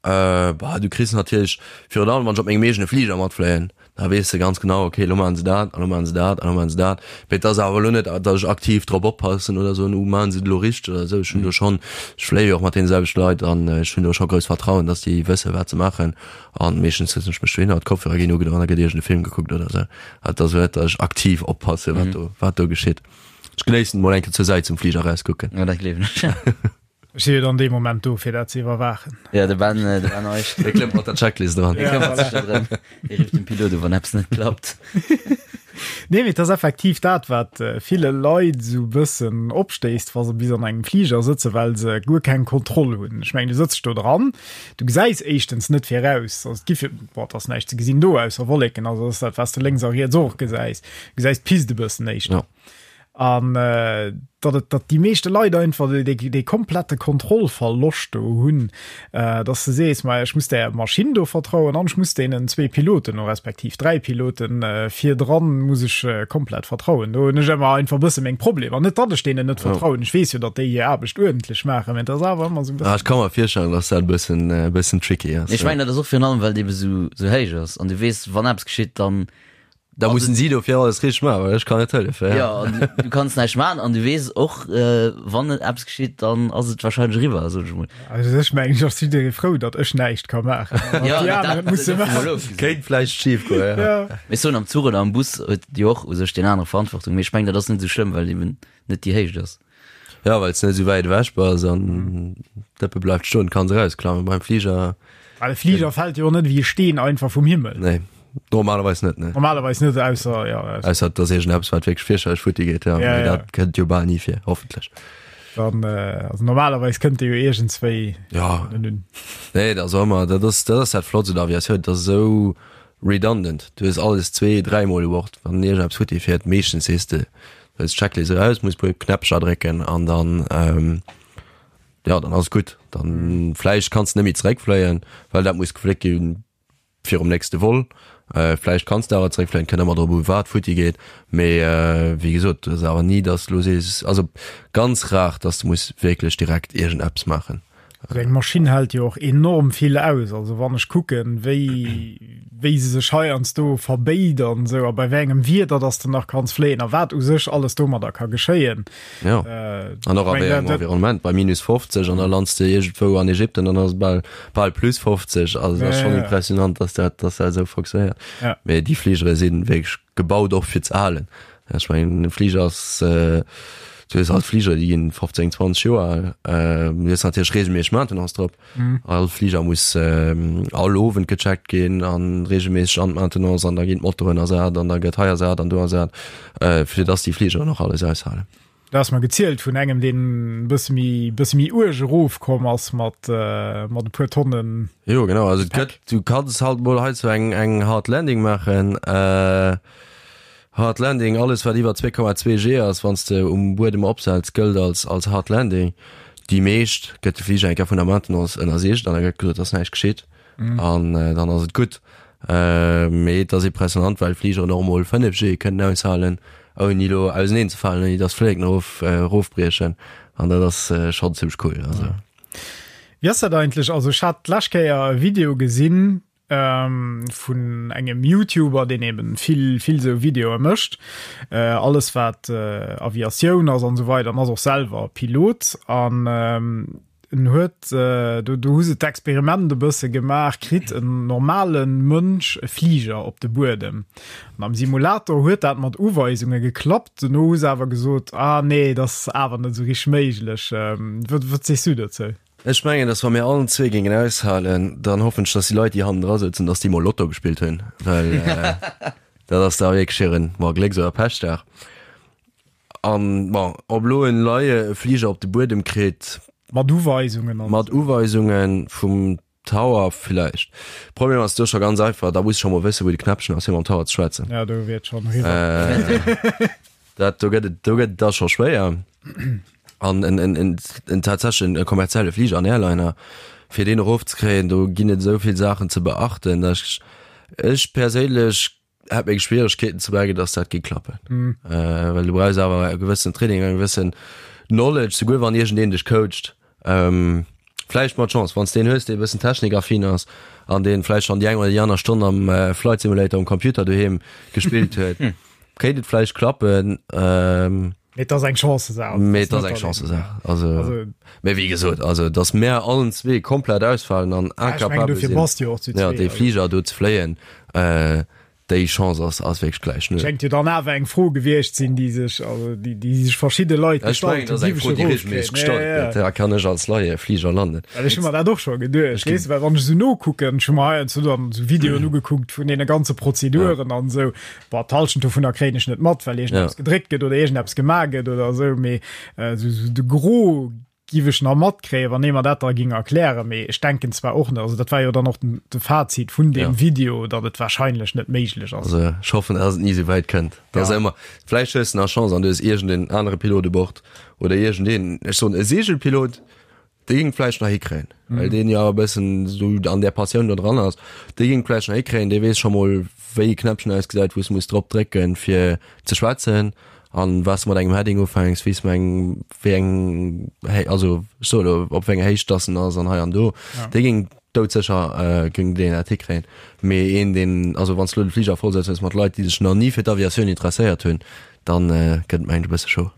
Bah, du kriss natierlech, virun allem wann ech op mengem eegene Fliger matfléien, da weess de ganz genau, okay, elo maachen se dat, an elo maachen se dat, an elo maachen se dat. Mee et ass awer elo net, datt ech aktiv drop oppassen oder soen, uh, maachen se et elo richteg oder esou. Ech hunn do schonn, ech fléie jo och mat deene selwechte Leit an ech hunn do scho grousst Vertrauen, datt déi wësse wat se maachen. An meeschtens sëtzen ech mech dohinner, d'Kopfhörer ginn ugedoen an da gëtt iergend e Film gekuckt oder esou. Et ass elo net, datt ech aktiv oppasse wat do, wat do geschitt. Ech genéissen et mol eng Kéier zur Säit zum Fliger erauskucken. Jo, dat gleewen ech. Ech si jo dann dee Moment do, fir dat ze iwwerwaachen. Ja, de Ben, de Ben Eich. Dee klëmmt mat der Checklist eran. Dee këmmert sech da drëm. Dee rifft dem Pilot u, wann eppes net klappt. Nee, mee et ass effektiv dat, wat ville Leit esou e bëssen opstéisst, wa se bis an engem Fliger sëtzen, well se guer keng Kontroll hunn. Ech mengen, du sëtz do dran, du gesäis éischtens net viraus, also et gi fir, bon, et ass näischt ze gesinn do ausser Wolleken, also ass dat, wat s de lénks a riets och gesäis. Du gesäis d'Pist e bëssen éischter. Ja. An datt et, datt déi meeschte Leit einfach dee, dee komplette Kontrollverloscht do hunn, datt s de sees, ma ech muss där Maschinn do vertrauen an ech muss deenen zwee Piloten o respektiv dräi Piloten virdran muss ech komplett vertrauen. Do hunn ech ëmmer einfach e bësse meng Problemer. Net datt ech deenen net vertrauen, ech weess jo, datt déi hir Aarbecht uerdentlech maachen, mä et ass awer ëmmer esou e bëssen. Ah, ech ka mer virstellen, datt dat e bëssen, e bëssen tricky ass. Ech mengen, dat ass och virun allem, well et ebe sou, sou héich ass an du weess, wann eppes geschitt, dann Da mussen si dofir alles richteg maachen, well ech kann net hëllefen. Ja, an du, du kanns näischt maachen an du weess och, äh, wann et eppes geschitt, dann ass et wahrscheinlech eriwwer, sot ech mol. Also ech mengen, ech ass jidderee frou, datt ech näischt ka maachen. An Ja, déi dat, aner et musse dat mol maachen. ofgesinn. Kéint vläicht schif goen, ja. Ja. Mee ech soen, am Zuch oder am Bus huet jo och u sech deen anere Verantwortung, mee ech mengen, dat ass net esou schlëmm, well eben net déi Héicht ass. Ja, well s de net esou wäit ewech bass an d'Dëppe bleift stoen, kanns erausklammen. Beim Fliger. Well e Fliger fält jo och net ewéi e Steen einfach vum Himmel. Nee, normalerweis net, nee. Normalerweis net, ausser, ja. Ausser et ass iergendeppes, wat wierklech fierchterlech futti geet, ja. Ja, Mee ja. dat kënnt jo bal ni vir, hoffentlech. Dann, also normalerweis kënnt dee jo iergendswéi. Ja. Un. Nee, dat ass och ëmmer, dat ass, dat ass dat Flotts un der Aviatioun, dat ass esou redundant. Du hues alles zwee, dräimol u Bord, wann iergendeppes futti fiert. Meeschtens sees de, Du hues d'Checklist eraus, muss puer Knäppcher drécken an dann ähm, ja, dann ass gutt. Dann vläicht kanns de net méi zeréckfléien, well dat muss gefléckt ginn virum nächste Vol. Äh, vläicht kanns de awer zeréckfléien, kënnt ëmmer drop u wat futti geet. Mee äh, wéi gesot, et ass awer ni, dass de lo sees, also ganz rar, dass de muss wierklech direkt iergendeppes maachen. Also eng Maschinn hält jo och enorm vill aus. Also wann ech kucken, wéi, wéi se sech heiansdo verbéit an esou a bei wéi engem Wieder dass de nach kanns fléien a wat u sech alles domadder ka geschéien. Ja. Äh, An och a ech wéi meng, engem dat, dat, Environnement, bei minus 50 an da lands de iergendwou an Ägypten an ass et bal, bal plus 50. Also dat ass ja, schonn ja, impressionant, dass dat, dass dat esou fonctionnéiert. ja. Mee déi Fligere si wierklech gebaut och fir ze halen. Ech mengen e Fliger ass, du hues alt Fliger déi ginn 15, 20 Joer al, du hues natierlech reegelméisseg Maintenance drop. All Fliger muss all Owend gecheckt ginn an reegelméisseg an d'Maintenance an da ginn d'Motoren ersat an da gëtt hei ersat an do ersat, fir dass déi Fligeren och alles aushalen. Dat ass mer gezielt vun engem, deen e bësse méi, bësse méi uerg erofkomm ass mat, mat e puer Tonnen. Jo genau, also et Gepäck. gëtt, du kanns halt mol hei sou eng, eng Hard Landing maachen. Hard Landing, alles wat iwwer 2,2 G ass, wann s de um Buedem opsetz, gëllt als, als Hard Landing. Déi meescht gëtt de Fliger eng Kéier vun der Maintenance ënnersicht an da gëtt gesot, et ass näischt geschitt an dann ass et gutt. Mee et ass impressionant, well Fligeren och emol 5 G kënnen aushalen, ouni elo auseneen ze falen, ouni datt d'Flilleken erof erofbriechen. An dat ass schonn zimmlech cool. Also. Wéi ass dat eigentlech? Also ech hat d'lescht Kéier e Video gesinn vun engem YouTuber, deen eben vill vill esou Videoe mécht, alles wat Aviatioun ass an esou weider, an ass och selwer Pilot an En huet, do do hu se d'Experiment e bësse gemaach, kritt en normale Mënsch e Fliger op de Buedem. An am Simulator huet dat mat Uweisunge geklappt. Dono hu se awer gesot, ah nee, dat ass awer net esou richteg méiglech. Wat wat sees du dozou? Ech mengen, dass wa mir allen zwee géingen aushalen, dann hoffen ech, dass déi Leit, déi hannendra sëtzen, dass déi mol Lotto gespillt hunn, well dat ass da wierklech hiren, bon, Glécks oder Pechdag. An, bon, ob elo en Laie e Fliger op de Buedem kritt. Mat Uweisungen an. Mat Uweisungen vum Tower villäicht. Problem ass do scho ganz einfach, da muss ech scho mol wëssen, wou de Knäppchen ass, fir mam Tower ze schwätzen. Ja, do wier et schonn eriwwer. Dat, do gëtt et, do gëtt et da scho schwéier. An en, en, en, en tatsächlechen e kommerzielle Fliger, en Airliner, fir deen erofzekréien, do ginn et esou vill Saachen ze beachten, dass ech, ech perséinlech hätt meng Schwieregkeeten ze merken, dass dat géing klappen. Mm. Äh, well du brauchs awer e gewëssen Training, eng gewëssen Knowledge, souguer wann iergendeen dech coacht. Ähm, Vläicht mat Chance, wann s de een hues, dee e bëssen technikaffin ass an dee vläicht schonn déi eng oder déi aner Stonn am Flight Simulator um Computer doheem gespillt huet, kéint et vläicht klappen. Mee et ass eng Chancesaach. Mee et ass eng Chancesaach. Also, mee wéi gesot, also datt mär allen zwee komplett ausfalen an incapabel sinn, dee Fliger do ze fléien, Déi Chance ass ass wierklech gläich null. Schéngt jo dann awer eng Fro gewiescht sinn, déi sech, also déi, déi sech verschidde Leit Ech mengen, gestallt dat ass eng Fro, déi regelméisseg gestallt gëtt. Ja, kann ech als Laie Fliger landen? Well ech hu mer dat och scho geduecht, weess de, well wann ech esou nokucken, ech hu mer heiansdo dann esou Videoen ugekuckt vun deene ganze Prozeduren an esou, bon, d'Hallschent dovunner kréien ech net mat, well iergendeppes gedréckt gëtt oder iergendeppes gemaach gëtt oder esou, mee esou de Gros Giff ech nach matkréien, wann ee mer dat da ging erklären, mee ech denken zwar och net, also dat war jo dann och den, de Fazit vun deem ja. Video, datt et wahrscheinlech net méiglech ass. Also ech hoffen, dass et ni esou wäit kënnt. Dat ass ja. ëmmer, vläicht hues de nach Chance an du hues iergendeen anere Pilot u Bord oder iergendeen, ech soen e Segelpilot, dee géing vläicht nach hikréien, mhm. well deen jo e bëssen esou an där Passioun do dran ass, dee géing vläicht nach hikréien, dee weess scho mol wéi e Knäppchen ausgesäit, wou s muss drop drécken fir ze schwätzen. An was mat engem Heading ufänks, wéi s eng wéi eng hey, also ech soe lo op wéi enger Héicht dass en ass an hei an do, ja. dee géing doudsécher äh, géing deen dat hikréien. Mee een deen also wann s lo de Fliger voll setz hues mat Leit, déi sech nach ni fir d'Aviatioun interesséiert hunn, dann äh, gëtt et mengen ech e bësse chaud.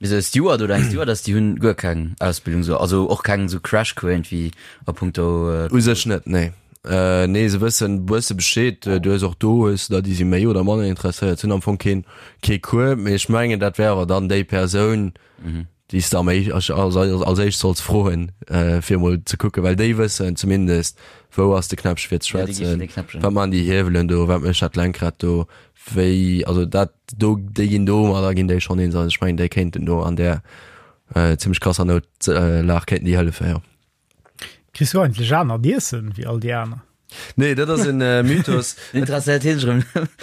Mee sou e Steward oder eng Stewardess, déi hunn guer keng Ausbildung sou, also och keng sou Crashcours iergendwéi a punkto. U sech net, nee. Nee, se wëssen bësse Bescheed. Du hues och do hues de der, déi si méi oder manner interesséiert sinn, am Fong keen kee Cours. Mee ech mengen, dat wär awer dann déi Persoun, déi s de am éisch als als éischt solls froen, fir emol ze kucken, well déi wëssen zumindest, wou ass de Knäppche fir ze schwätzen, wat man déi Hiewelen do, wat mécht dat Lenkrad do, wéi, also dat do, déi ginn domadder ginn déi schonn eens. Also ech mengen, déi kéinten do an där zimmlech krasser Noutlag kéinten déi hëllefen, jo. Kriss du eigentlech anert Iessen wéi all déi aner? Nee, dat ass en äh, Mythos. Interesséiert hien sech erëm.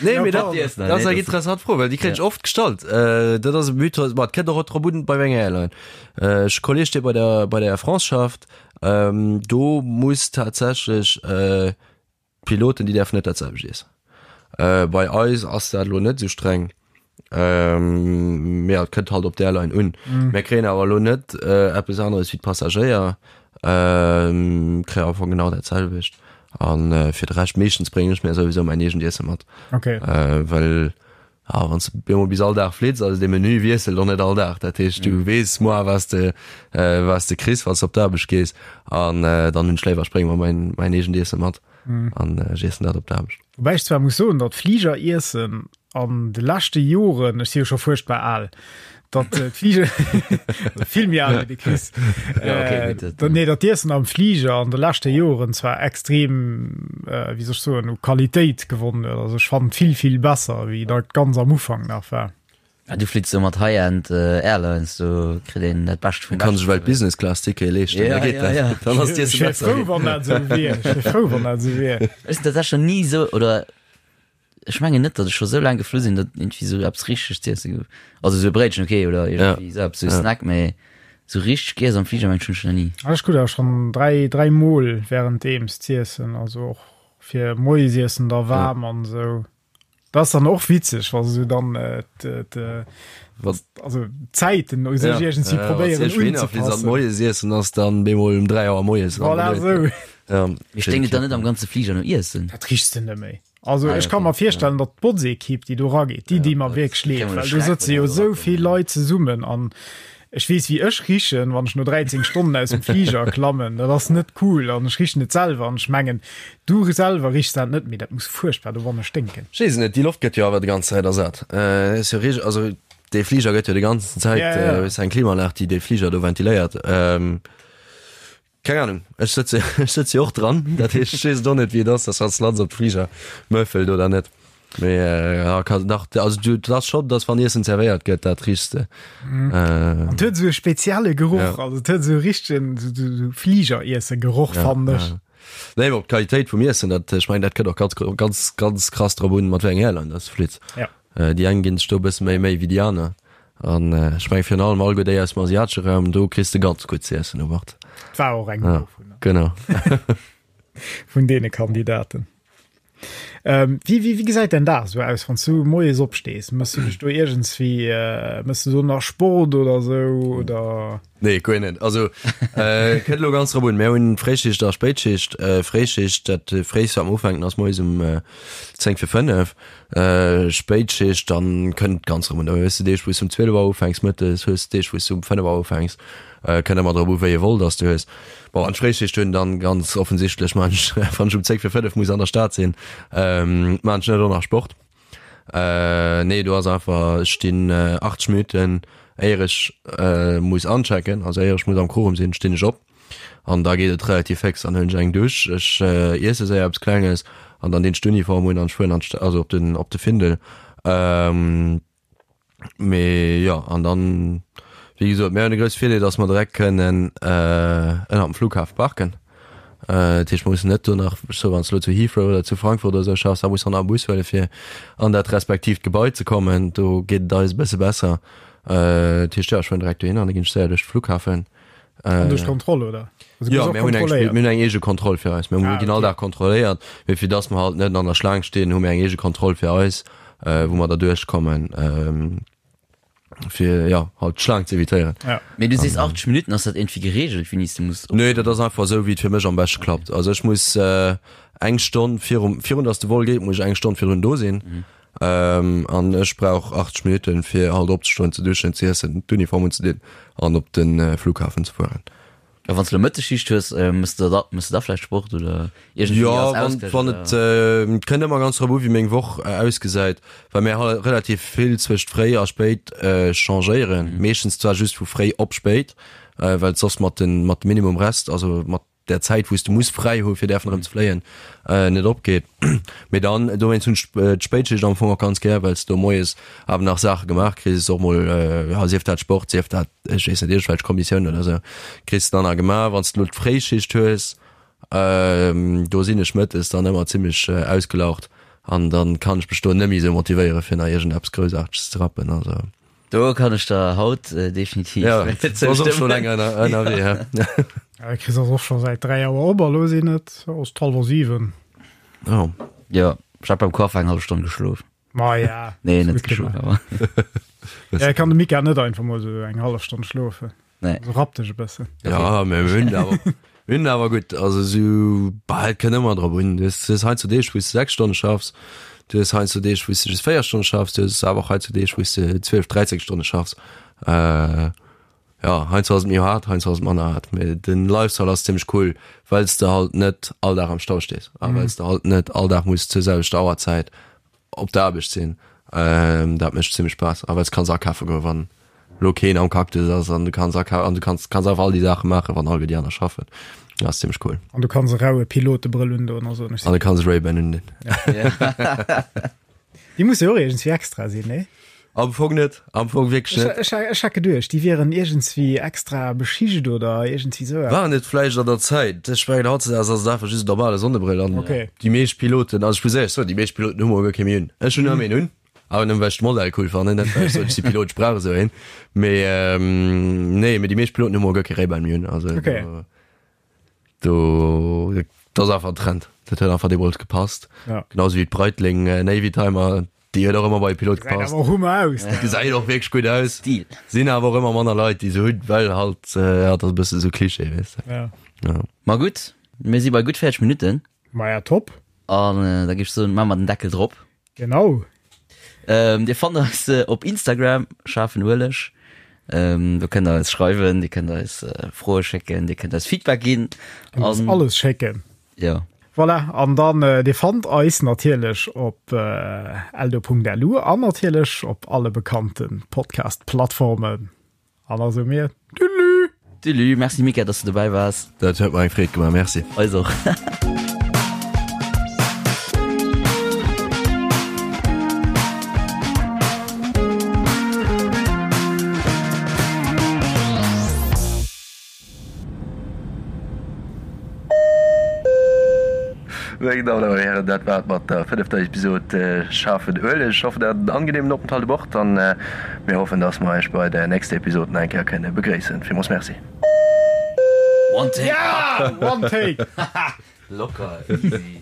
Nee, mee dat, dat ass eng interessant Fro, well déi kréien ech oft gestallt. Äh, dat ass e Mythos, ma et kënnt och drop un, bei wéi enger Airline. Äh, ech Kolleg, dee bei der, bei der Air France schafft, ähm, do muss tatsächlech äh, D'Piloten, déi däerfen net dat selwecht iessen. Bei eis ass dat elo net esou streng. Mee et kënnt halt op d'Airline un. Mir kréien awer elo net eppes aneres wéi d'Passagéier. Kréie am Fong genau dat selwecht. A fir de Rescht, meeschtens bréngen ech mir souwisou mäin eegent Iesse mat. Well Ah, wann s de bemol bis all Dag flitts, also de Menü wiesselt och net all Dag. Dat heescht, du weess moar, wat s de, wat s de kriss, wann s de op d'Aarbecht gees. An dann hunn ech léiwer, ech brénge mer mäin, mäin eegent Iessen mat an ech iessen dat op d'Aarbecht. Woubäi ech zwar muss soen, datt Fligeriessen an de leschte Joren, ech si jo scho fuerchtbar al, datt d'Fliger, vill méi al wéi de Chris, ja, okay, äh, gutt, nee, datt d'Iessen am Fliger an de leschte Joren zwar extrem, äh, wéi soll ech soen, u Qualitéit gewonnen huet. Also ech fannen vill, vill besser, wéi dat ganz am Ufank nach war. Ja, du flitts do mat High-End äh, Airlines, do kritt een dat Bescht vum Kann sech well Business Class Ticket leeschten, ja, da geet ja, dat. Ja. Dann ass d'Iessen besser. Ech wier frou, wann dat esou wier. Ech wier frou, wann dat esou wier. Ech sinn tatsächlech ni esou, oder Ech mengen net, datt ech scho sou laang geflu sinn, datt iergendwéi sou eppes richteg z'iessen gouf. Also sou e Bréitchen, okay, oder iergendwéi sou eppes, sou e Snack, mee sou richteg giess am Fliger mengen ech hunn ech nach ni. Ech krut awer schonn 3, 3 mol währenddeems z'iessen, also och fir Moiesiessen da waarm an sou. Dat ass dann och witzeg, wa se sou dann d', also d'Zäiten u sech iergendwéi probéieren unzepassen. Moiesiessen ass dann bemol um 3 Auer moies. Voilà, sou. Mee sténkt et dann net am ganze Fliger no Iessen? Dat richs de net méi. Also ah, ech kann mer virstellen, datt d'Botzekipp, déi do rageet, déi déi mer wierklech leed, well do sëtze jo esou vill Leit zesummen an ech weess wéi ech richen, wann ech no 13 Stonnen aus dem Fliger klammen, dat ass net cool an ech richen et selwer an ech mengen du selwer richs dat net, mee dat muss fuerchtbar dowanne sténken. Ech weess et net, déi Loft gëtt jo awer déi ganz Zäit ersat. Äh, ass jo reg, also dee Fliger gëtt jo déi ganzen Zäit, ja, ja. Äh, eng Klimaanlag, déi dee Fliger do ventiléiert. Ähm, Keng Ahnung, ech sëtze ech sëtze jo och dran, dat heescht ech weess et och net wéi et ass, dass wann s de lanns op d'Fliger mëffelt oder net. Mee ja kann dach also du dat ass schonn, dass wann Iessen zerwéiert gëtt, dat richs de. An et huet esou e spezielle Geroch, also et huet esou e richtegen esou Fliger-Iesse-Geroch fannen ech. Nee mee op d'Qualitéit vum Iessen, dat ech mengen dat kënnt och ganz ganz ganz krass drop un mat wéi enger Airline dass de flitts. Ja. Déi eng ginn sech do e bësse méi Méi wéi déi aner. An ech menge virun allem alleguer déi aus dem asiatesche Raum, do kriss de ganz gutt z'iessen u Bord. War och eng dovunner. Genau. Vun deene Kandidaten. Ähm, wéi, wéi, wéi gesäit däin Dag esou aus, wann s du moies opstees? Mëss du dech do iergendswéi, äh, mëss du do nach Sport oder esou, oder? Nee, guer net. Also äh, kënnt lo ganz drop un. Mir hunn Fréischicht a Spéitschicht. Äh, Fréischicht, dat fréist wat mer ufänken ass moies um äh, 10 fir 5. Äh, Spéitschicht, dann kënnt ganz drop un. Da hues de Deeg wou s du um 12 Auer ufänks mëttes, hues Deeg wou s du um 5 Auer ufänks. Äh, kënnt ëmmer drop u wéi e Vol dass du hues. Bon, an d'Fréischicht hunn dann ganz offensichtlech man ech, wann ech um 10 fir 5 muss an der Stad sinn, ähm, man ech net och nach Sport. Äh, nee, do ass einfach, ech stinn äh, 80 Minuten, éier ech äh, muss anchecken, also éier ech muss am Quorum sinn, stinn ech op. An da geet et relativ féx, dann huelen ech eng Dusch, ech äh, iesse séier eppes Klenges an dann dinn ech d'Uniform un an ech fueren an d'Sta-, also op den, op de Findel. Ähm, Mee jo, an dann, wéi gesot, mir hunn de grousse Virdeel, datt mer direkt kënnen ënnert dem Flughafe parken. Dat heescht, mer mussen net do nach, ech soe wann s de elo zu Heathrow oder zu Frankfurt oder esou schaffs, da muss de nach e Bus huele fir an dat respektiivt Gebai ze kommen. Do geet et eis e bësse besser. Dat heescht, jo, ech fueren direkt dohin an da ginn ech séier duerch de Flughafen. An duerch d'Kontroll, oder? Also, jo, mir hunn eng, mir hunn eng eege Kontroll fir eis. Mir ah, ginn all Dag kontrolléiert, mee fir dass mer halt net an der Schlaang stinn, hu mir eng eege Kontroll fir eis, äh, wou mer da duerchkommen, ähm, fir ja halt d'Schlaang ze evitéieren. Ja. Mee du sees 80 Minuten, ass dat iergendwéi gereegelt, wéini s du muss? Nee, dat ass einfach esou, wéi et fir mech am beschte klappt. Also ech muss äh, eng Stonn virum, virun dass de Vol geet, muss ech eng Stonn virdrun do sinn. Mhm. An ech brauch 80 Minutten, fir halt opzestoen, ze duschen, ze iessen, d'Uniform unzedinn an op de Flughafen ze fueren. A wann s de elo Mëttesschicht hues, mëss de da, mëss de da vläicht Sport oder iergendwéi Jo, als wann, Ausgleich wann et, oder? Et kënnt ëmmer ganz drop u wéi meng Woch ausgesäit, well mir halt relativ vill zwëscht fréi a spéit changéieren. Meeschtens zwar just vu fréi op spéit, well et soss mat den, mat dem Minimum Rest, also mat der Zäit wou s de muss fräi hu fir däerfen erëm ze fléien net opgeet. Mee dann dowéinst hunn ech d'Spéitschicht am Fong och ganz gär, well s do moies awer nach Saache gemaach kriss, och mol ja sief dat Sport, sief dat ech weess net iergendwelch Kommissiounen oder sou kriss de dann nach gemaach. Wann s de elo d'Fréischicht hues, do sinn ech mëttes dann ëmmer zimmlech ausgelaucht an dann kann ech mech do net méi sou motivéiere fir nach iergendeppes Groussaarteges ze rappen. Also. Do kann ech der haut definitiv ja, zoustëmmen. Länger ënnerwee, ja. Ja, Chris ass och scho säit 3 Auer op a lo sinn et ass d'hallwer 7. Oh. Ja, ech hat beim Coiffer eng hallef Stonn geschlof. Ma ja. Nee, net geschlof, awer. Ja, kann de Mika net einfach mol sou eng hallef Stonn schlofen. Nee. Also rapp dech e bëssen. Ja, mir hunn awer, mir hunn awer gutt, also sou, bah, et kënnt ëmmer drop un. Du hues, du hues heiansdo Deeg, wou s de 6 Stonne schaffs, du hues heiansdo Deeg, wou s de just 4 Stonne schaffs, du hues awer och heiansdo Deeg, wou s de 12, 13 Stonne schaffs. Äh, ja, heiansdo ass et méi haart, heiansdo ass et manner haart, mee den Lifestyle ass zimmlech cool, well s de halt net all Dag am Stau stees a well s de halt net all Dag muss zur selwechter Auerzäit op der Aarbecht sinn, dat mécht zimmlech Spaass. A well s kanns akafe goen, wann elo keen am Cactus ass an du kanns aka an du kanns kanns einfach all déi Saache maachen, wann alleguer déi aner schaffen. Dat ass zimmlech cool. An du kanns e raue Pilotebrëll undoen a soen, ech An du kanns e Ray-Ban undinn. Déi musse jo och iergendswéi extra sinn, nee? Am Fong net, am Fong wierklech net. Ech, ech, ech hat geduecht, déi wieren iergendswéi extra beschicht oder iergendswéi sou eppes. Waren et vläicht an der Zäit. Ech mengen hautzedags ass et einfach just en normale Sonnebrëll an Okay. déi meescht Piloten, also ech muss éierlech soen, déi meescht Piloten hu mol guer kee méi un. Ech hunn ëmmer een un, awer nëmmen well ech de Modell cool fannen, net well ech soen, ech si Pilot, ech brauch esou een. Mee nee, mee déi meescht Piloten hu mol guer kee Ray-Ban méi un, also Okay. do. Do, dat ass einfach en Trend. Dat huet einfach deemools gepasst. Ja. Genauso wéi d'Breitling äh, Navy Timer, déi huet och ëmmer bei Pilot Gesäit gepasst. awer och hummer aus. Ja. Gesäit och wierklech gutt aus. Stil. Sinn awer och ëmmer manner Leit, déi se hunn, well halt, äh, ja, dat ass e bësse sou Klischee, weess de. Ja. Ja. Ma gutt, mir si bei gutt 40 Minutten. Ma ja, top. An äh, da géif ech soen, maache mer den Deckel drop. Genau. Ähm, dir fannt eis äh, op Instagram, schaarfen Ueleg. Ähm, do kënnt der eis schreiwen, dir kënnt eis äh, Froe schécken, dir kënnt eis Feedback ginn. An An, alles schécken. ja. Voilà, an dann äh, dir fannt eis natierlech op äh, eldo.lu an natierlech op alle bekannten Podcast-Plattformen. An da soe mir Tüdelü! Tüdelü, merci Mika, dass du dobäi waars. Dat huet mer eng Freed gemaach, merci. Eis och. Meng Dammen an Hären, dat war et mat der fënnefter Episod Schaarfen Ueleg. Ech hoffen, der hat en angenehmen Openthalt u Bord an mir hoffen, dass mer iech bei der nächster Episod nach eng Kéier kënne begréissen. Villmools Merci. One take! Ja! One take! Locker, easy.